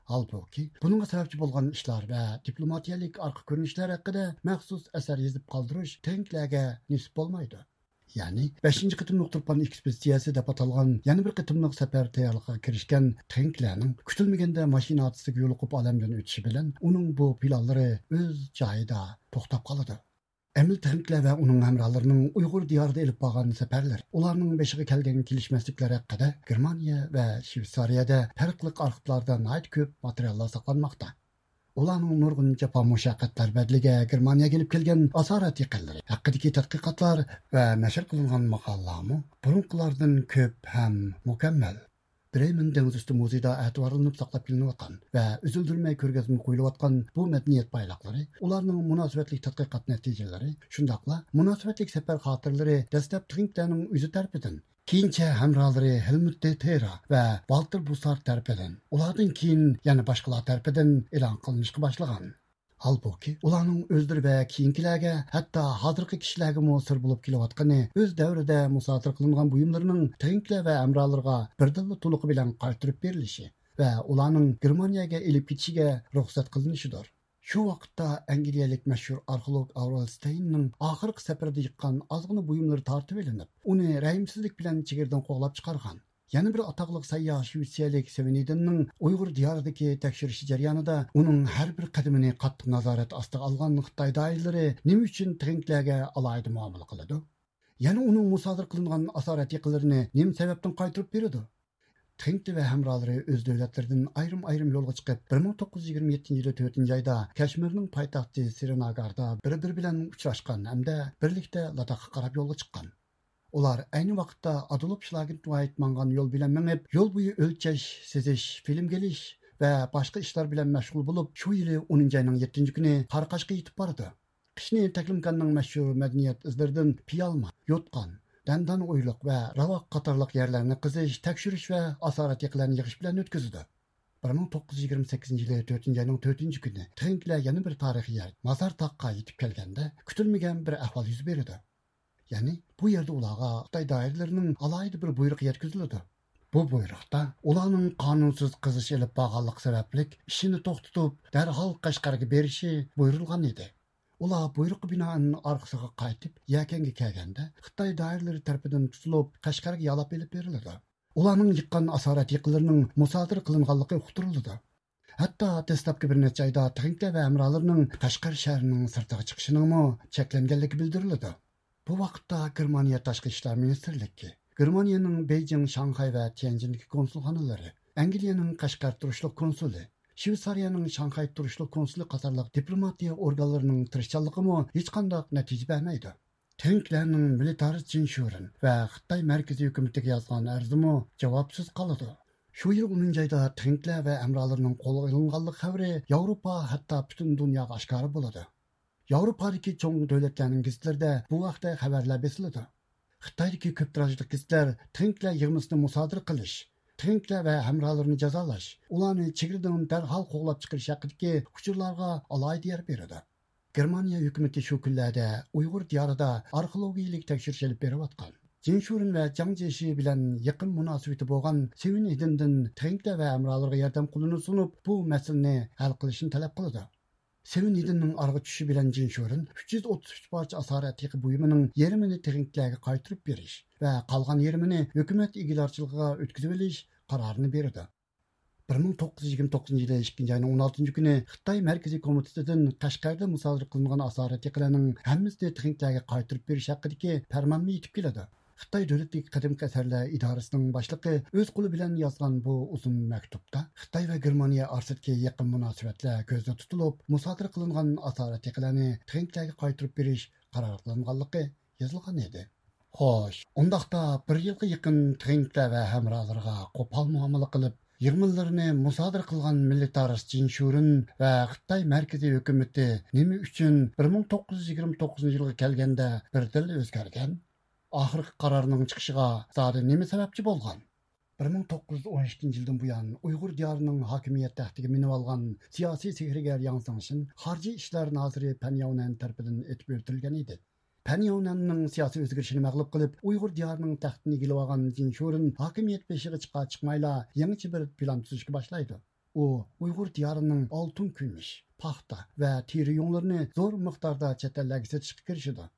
ھالبۇكى، بۇنىڭغا سەۋەبچى بولغان ئىشلار ۋە دىپلوماتىيەلىك ئارقا كۆرۈنۈشلەر ھەققىدە مەخسۇس ئەسەر يېزىپ قالدۇرۇش ترىنكلەرگە نېسىپ بولمايدۇ. يەنى، بەشىنچى قېتىملىق تۇرپان ئېكسپېدىتسىيەسى دەپ ئاتالغان يەنە بىر قېتىملىق سەپەر تەييارلىقىغا كىرىشكەن ترىنكلەرنىڭ كۈتۈلمىگەندە ماشىنا ھادىسىسىگە يولۇقۇپ ئالەمدىن ئۆتۈشى بىلەن ئۇنىڭ بۇ پىلانلىرى ئۆز جايىدا توختاپ قالىدۇ. ئەمىل ترىنكلەر ۋە ئۇنىڭ ھەمراھلىرىنىڭ ئۇيغۇر دىيارىدا ئېلىپ بارغان سەپەرلىرى، ئۇلارنىڭ بېشىغا كەلگەن كېلىشمەسلىكلەر ھەققىدە گېرمانىيە ۋە شۋېتسارىيەدە پەرقلىق ئارخىپلاردا ناھايىتى كۆپ ماتېرىياللار ساقلانماقتا. ئۇلارنىڭ نۇرغۇن جاپا مۇشەققەتلەر بەدىلىگە گېرمانىيەگە ئېلىپ كەلگەن ئاسارەتىقىلىرى ھەققىدىكى تەتقىقاتلار ۋە نەشر قىلىنغان ماقالىلەرمۇ بۇرۇنقىلاردىن كۆپ ھەم مۇكەممەل. برېمېن دېڭىز ئۈستى مۇزېيىدا ئەتىۋارلىنىپ ساقلاپ كېلىنىۋاتقان ۋە ئۈزۈلدۈرمەي كۆرگەزمىگە قويۇلۇۋاتقان بۇ مەدەنىيەت بايلىقلىرى، ئۇلارنىڭ مۇناسىۋەتلىك تەتقىقات نەتىجىلىرى، شۇنداقلا مۇناسىۋەتلىك سەپەر خاتىرىلىرى دەسلەپ ترىنكلەرنىڭ ئۆزى تەرىپىدىن، كېيىنچە ھەمراھلىرى ھېلمۇت دې تېرا ۋە ۋالتېر بۇسسارت تەرىپىدىن، ئۇلاردىن كېيىن يەنە باشقىلار تەرىپىدىن ئېلان قىلىنىشقا باشلىغان. ھالبۇكى، ئۇلارنىڭ ئۆزلىرى ۋە كېيىنكىلەرگە، ھەتتا ھازىرقى كىشىلەرگىمۇ سىر بولۇپ كېلىۋاتقىنى ئۆز دەۋرىدە مۇسادىرە قىلىنغان بۇيۇملىرىنىڭ ترىنكلەر ۋە ھەمراھلىرىغا بىردىنلا تولۇقى بىلەن قايتۇرۇپ بېرىلىشى ۋە ئۇلارنىڭ گېرمانىيەگە ئېلىپ كېتىشىگە رۇخسەت قىلىنىشىدۇر. شۇ ۋاقىتتا ئەنگلىيەلىك مەشھۇر ئارخېئولوگ ئاۋرېل ستېيننىڭ ئاخىرقى سەپىرىدە يىغقان ئازغىنە بۇيۇملىرى تارتىۋېلىنىپ، ئۇنى رەھىمسىزلىك بىلەن چېگرىدىن قوغلاپ چىقارغان. يەنە بىر ئاتاقلىق سەيياھ شىۋېتسىيەلىك سېۋېنىدىننىڭ ئۇيغۇر دىيارىدىكى تەكشۈرۈشى جەريانىدا ئۇنىڭ ھەر بىر قەدىمىنى قاتتىق نازارەت ئاستىغا ئالغان خىتاي دائىرىلىرى نېمە ئۈچۈن تېڭكلەرگە ئالاھىدە مۇئامىلە قىلىدۇ؟ يەنە ئۇنىڭ مۇسادىرە قىلىنغان ئاسارەت يېقىنلىرىنى نېمە سەۋەبتىن قايتۇرۇپ بېرىدۇ؟ تېڭكلى ۋە ھەمراھلىرى ئۆز دۆلەتلىرىدىن ئايرىم-ئايرىم يولغا چىقىپ، بىر مىڭ توققۇز يۈز يىگىرمە يەتتىنچى يىلى تۆتىنچى ئايدا كەشمىرنىڭ پايتەختى سرىناگاردا بىر-بىرى بىلەن ئۇچراشقان ھەمدە بىرلىكتە لاداخقا قاراپ يولغا چىققان. ئۇلار ئەينى ۋاقىتتا ئادولف شلاگېنتۋايت ماڭغان يول بىلەن مېڭىپ، يول بويى ئۆلچەش، سىزىش، فىلىم كېلىش ۋە باشقا ئىشلار بىلەن مەشغۇل بولۇپ، شۇ يىلى ئونىنچى ئاينىڭ يەتتىنچى كۈنى قاراقاشقا يېتىپ بارىدۇ. قىشنى تەكلىماكاننىڭ مەشھۇر مەدەنىيەت ئىزلىرىدىن پىيالما، يوتقان، دەندان ئويلۇق ۋە راۋاق قاتارلىق يەرلەرنى قېزىش، تەكشۈرۈش ۋە ئاسارەت يېقىلارنى يىغىش بىلەن ئۆتكۈزىدۇ. بىر مىڭ توققۇز يۈز يىگىرمە سەككىزىنچى يىلى تۆتىنچى ئاينىڭ تۆتىنچى كۈنى تېڭكلەر يەنە بىر تارىخىي يەر، مازار تاغقا يېتىپ كەلگەندە، كۈتۈلمىگەن بىر ئەھۋال يۈز بېرىدۇ. يەنى بۇ يەردە ئۇلارغا خىتاي دائىرىلىرىنىڭ ئالاھىدە بىر بۇيرۇقى يەتكۈزۈلىدۇ. بۇ بۇيرۇقتا ئۇلارنىڭ قانۇنسىز قېزىش ئېلىپ بارغانلىقى سەۋەبلىك ئىشىنى توختىتىپ، دەرھال قەشقەرگە بېرىشى بۇيرۇلغان ئىدى. ئۇلار بۇيرۇققا بىنائەن ئارقىسىغا قايتىپ، يەكەنگە كەلگەندە، خىتاي دائىرىلىرى تەرىپىدىن تۇتۇلۇپ، قەشقەرگە يالاپ ئېلىپ بېرىلىدۇ. ئۇلارنىڭ يىغقان ئاسارەت يېقىنلىرىنىڭ مۇسادىرە قىلىنغانلىقى ئۇقتۇرۇلىدۇ. ھەتتا دەسلەپكى بىر نەچچە ئايدا تېڭكلەر ۋە ھەمراھلىرىنىڭ قەشقەر شەھىرىنىڭ سىرتىغا چىقىشىنىڭمۇ چەكلەنگەنلىكى بىلدۈرۈلىدۇ. بۇ ۋاقىتتا گېرمانىيە تاشقى ئىشلار مىنىستىرلىكى، گېرمانىيەنىڭ بېيجىڭ، شاڭخەي ۋە تيەنجىندىكى كونسۇلخانىلىرى، ئەنگلىيەنىڭ قەشقەر تۇرۇشلۇق كونسۇلى، شۋېتسارىيەنىڭ شاڭخەي تۇرۇشلۇق كونسۇلى قاتارلىق دىپلوماتىيە ئورگانلىرىنىڭ تىرىشچانلىقىمۇ ھېچقانداق نەتىجە بەرمەيدۇ. تېڭكلەرنىڭ مىلىتارىست جىن شۈرېن ۋە خىتاي مەركىزىي ھۆكۈمىتىگە يازغان ئەرزىمۇ جاۋابسىز قالىدۇ. شۇ يىل ئونىنچى ئايدا تېڭكلەر ۋە ھەمراھلىرىنىڭ قولغا ئېلىنغانلىق خەۋىرى ياۋروپا، ھەتتا پۈتۈن دۇنياغا ئاشكارا بولىدۇ. ياۋروپادىكى چوڭ دۆلەتلەرنىڭ گېزىتلىرىدە بۇ ھەقتە خەۋەرلەر بېسىلىدۇ. خىتايدىكى كۆپ تىراژلىق گېزىتلەر تېڭكلەر يىغمىسىنى مۇسادىرە قىلىش، تېڭكلەر ۋە ھەمراھلىرىنى جازالاش، ئۇلارنى چېگرىدىن دەرھال قوغلاپ چىقىرىش ھەققىدىكى ئۇچۇرلارغا ئالاھىدە يەر بېرىدۇ. گېرمانىيە ھۆكۈمىتى شۇ كۈنلەردە ئۇيغۇر دىيارىدا ئارخېئولوگىيىلىك تەكشۈرۈش ئېلىپ بېرىۋاتقان، جىن شۈرېن ۋە جاڭ جيېشى بىلەن يېقىن مۇناسىۋىتى بولغان سېۋېن ھىدىندىن تېڭكلەر ۋە ھەمراھلىرىغا ياردەم قولىنى سۇنۇپ، بۇ مەسىلىنى ھەل قىلىشنى تەلەپ قىلىدۇ. سېۋېن ھىدىننىڭ ئارىغا چۈشۈشى بىلەن جىن شۈرېن ئۈچ يۈز ئوتتۇز ئۈچ پارچە ئاسارەت يېقى بۇيۇمىنىڭ يېرىمىنى تېڭكلەرگە قايتۇرۇپ بېرىش ۋە قالغان يېرىمىنى ھۆكۈمەت ئىگىدارچىلىقىغا ئۆتكۈزۈۋېلىش قارارىنى بېرىدۇ. بىر مىڭ توققۇز يۈز يىگىرمە توققۇزىنچى يىلى ئىككىنچى ئاينىڭ ئون ئالتىنچى كۈنى خىتاي مەركىزىي كومىتېتىدىن قەشقەردە مۇسادىرە قىلىنغان ئاسارەت يېقىلارنىڭ ھەممىسىنى تېڭكلەرگە قايتۇرۇپ بېرىش ھەققىدىكى پەرمانمۇ يېتىپ كېلىدۇ. خىتاي دۆلىتىدىكى قەدىمكى ئەسەرلەر ئىدارىسىنىڭ باشلىقى ئۆز قولى بىلەن يازغان بۇ ئۇزۇن مەكتۇپتا خىتاي ۋە گېرمانىيە ئارىسىدىكى يېقىن مۇناسىۋەتلەر كۆزدە تۇتۇلۇپ، مۇسادىرە قىلىنغان ئاسارەت يېقىلارنى تېڭكلەرگە قايتۇرۇپ بېرىش قارار قىلىنغانلىقى يېزىلغان ئىدى. خوش، ئۇنداقتا بىر يىلغا يېقىن تېڭكلەر ۋە ھەمراھلىرىغا قوپال مۇئامىلە قىلىپ، يىغمىلىرىنى مۇسادىرە قىلغان مىللىتارىست جىن شۈرېن ۋە خىتاي مەركىزىي ھۆكۈمىتى نېمە ئۈچۈن بىر مىڭ توققۇز يۈز يىگىرمە توققۇزىنچى يىلغا كەلگەندە بىردىنلا ئۆزگەرگەن؟ ئاخىرقى قارارنىڭ چىقىشىغا زادى نېمە سەۋەبچى بولغان؟ بىر مىڭ توققۇز يۈز ئون ئىككىنچى يىلدىن بۇيان ئۇيغۇر دىيارىنىڭ ھاكىمىيەت تەختىگە مىنىۋالغان سىياسىي سېھىرگەر ياڭ زېڭشىن خارىجى ئىشلار نازىرى پەن ياۋنەن تەرىپىدىن ئېتىپ ئۆلتۈرۈلگەن ئىدى. پەن ياۋنەننىڭ سىياسىي ئۆزگىرىشىنى مەغلۇپ قىلىپ، ئۇيغۇر دىيارىنىڭ تەختىنى ئىگىلىۋالغان جىن شۈرېن ھاكىمىيەت بېشىغا چىقار چىقمايلا يېڭىچە بىر پىلان تۈزۈشكە باشلايدۇ. ئۇ ئۇيغۇر دىيارىنىڭ ئالتۇن، كۈمۈش، پاختا ۋە تېرە يۇڭلىرىنى زور مىقداردا چەت ئەللەرگە سېتىشقا كىرىشىدۇ.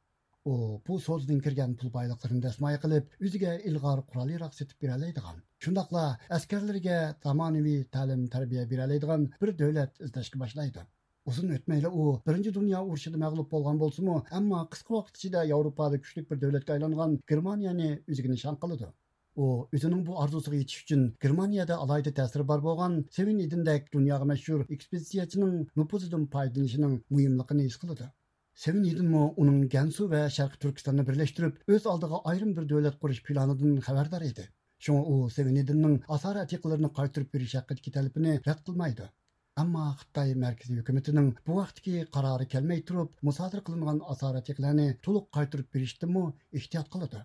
ئۇ بۇ سودىدىن كىرگەن پۇل بايلىقلىرىنى دەسمايە قىلىپ، ئۆزىگە ئىلغار قورال-ياراغ سېتىپ بېرەلەيدىغان، شۇنداقلا ئەسكەرلىرىگە زامانىۋى تەلىم-تەربىيە بېرەلەيدىغان بىر دۆلەت ئىزدەشكە باشلايدۇ. ئۇزۇن ئۆتمەيلا ئۇ بىرىنچى دۇنيا ئۇرۇشىدا مەغلۇپ بولغان بولسىمۇ، ئەمما قىسقا ۋاقىت ئىچىدە ياۋروپادا كۈچلۈك بىر دۆلەتكە ئايلانغان گېرمانىيەنى ئۆزىگە نىشان قىلىدۇ. ئۇ ئۆزىنىڭ بۇ ئارزۇسىغا يېتىش ئۈچۈن گېرمانىيەدە ئالاھىدە تەسىرى بار بولغان سېۋېن ھىدىندەك دۇنياغا مەشھۇر ئېكسپېدىتسىيەچىنىڭ نوپۇزىدىن پايدىلىنىشىنىڭ مۇھىملىقىنى ھېس قىلىدۇ. سېۋېن ھىدىنمۇ ئۇنىڭ گەنسۇ ۋە شەرقىي تۈركىستاننى بىرلەشتۈرۈپ، ئۆز ئالدىغا ئايرىم بىر دۆلەت قۇرۇش پىلانىدىن خەۋەردار ئىدى. شۇڭا ئۇ سېۋېن ھىدىننىڭ ئاسارەت يېقىنلىرىنى قايتۇرۇپ بېرىش ھەققىدىكى تەلىپىنى رەت قىلمايدۇ. ئەمما خىتاي مەركىزىي ھۆكۈمىتىنىڭ بۇ ھەقتىكى قارارى كەلمەي تۇرۇپ، مۇسادىرە قىلىنغان ئاسارەت يېقىلارنى تولۇق قايتۇرۇپ بېرىشتىنمۇ ئېھتىيات قىلىدۇ.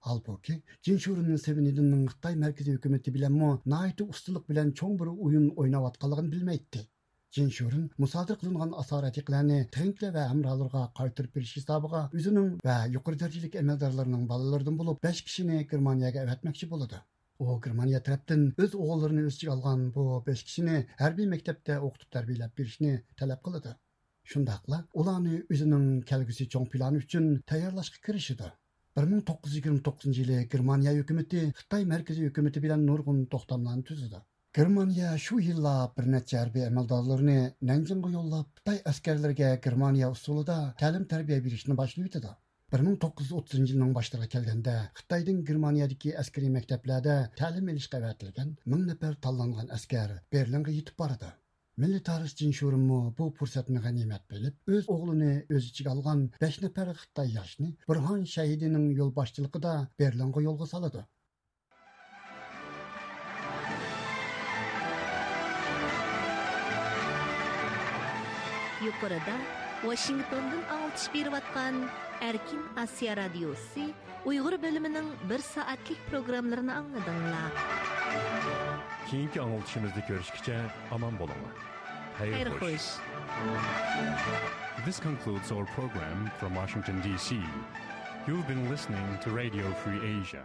ھالبۇكى، جىن شۈرېننى سېۋېن ھىدىننىڭ خىتاي مەركىزىي ھۆكۈمىتى بىلەنمۇ ناھايىتى ئۇستىلىق بىلەن چوڭ بىر ئويۇن ئويناۋاتقانلىقىنى بىلمەيتتى. جىن شۈرېن مۇسادىرە قىلىنغان ئاسارەت يېقىلارنى تېڭكلەر ۋە ھەمراھلىرىغا قايتۇرۇپ بېرىش ھېسابىغا ئۆزىنىڭ ۋە يۇقىرى دەرىجىلىك ئەمەلدارلىرىنىڭ بالىلىرىدىن بولۇپ بەش كىشىنى گېرمانىيەگە ئەۋەتمەكچى بولىدۇ. ئۇ گېرمانىيە تەرەپتىن ئۆز ئوغۇللىرىنى ئۆز ئىچىگە ئالغان بۇ بەش كىشىنى ھەربىي مەكتەپتە ئوقۇتۇپ تەربىيەلەپ بېرىشنى تەلەپ قىلىدۇ. شۇنداقلا ئۇلارنى ئۆزىنىڭ كەلگۈسى چوڭ پىلانى ئۈچۈن تەييارلاشقا كىرىشىدۇ. بىر مىڭ توققۇز يۈز يىگىرمە توققۇزىنچى يىلى گېرمانىيە ھۆكۈمىتى خىتاي مەركىزىي ھۆكۈمىتى بىلەن نۇرغۇن توختاملارنى تۈزىدۇ. گېرمانىيە شۇ يىللا بىر نەچچە ھەربىي ئەمەلدارلىرىنى نەنجىڭغا يوللاپ، خىتاي ئەسكەرلىرىگە گېرمانىيە ئۇسۇلىدا تەلىم-تەربىيە بېرىشنى باشلىۋېتىدۇ. بىر مىڭ توققۇز يۈز ئوتتۇزىنچى يىلنىڭ باشلىرىغا كەلگەندە، خىتايدىن گېرمانىيەدىكى ئەسكىرىي مەكتەپلەردە تەلىم ئېلىشقا ئەۋەتىلگەن مىڭ نەپەر تاللانغان ئەسكەر بېرلىنغا يېتىپ بارىدۇ. مىللىي تارىخچى جىن شۇرېنمۇ بۇ پۇرسەتنى غەنىيمەت بىلىپ، ئۆز ئوغلىنى ئۆز ئىچىگە ئالغان بەش نەپەر خىتاي ياشنى بۇرھان شەھىدىنىڭ يولباشچىلىقىدا بېرلىنغا يولغا سالىدۇ. يۇقىرىدا ۋاشىنگتوندىن ئاڭلىتىش بېرىۋاتقان ئەركىن ئاسىيا رادىيوسى ئۇيغۇر بۆلۈمىنىڭ بىر سائەتلىك پروگراممىلىرىنى ئاڭلىدىڭلار. كېيىنكى ئاڭلىتىشىمىزدا كۆرۈشكىچە ئامان بولۇڭلار. خەير خوش. This concludes our program from Washington, D C. You've been listening to Radio Free Asia.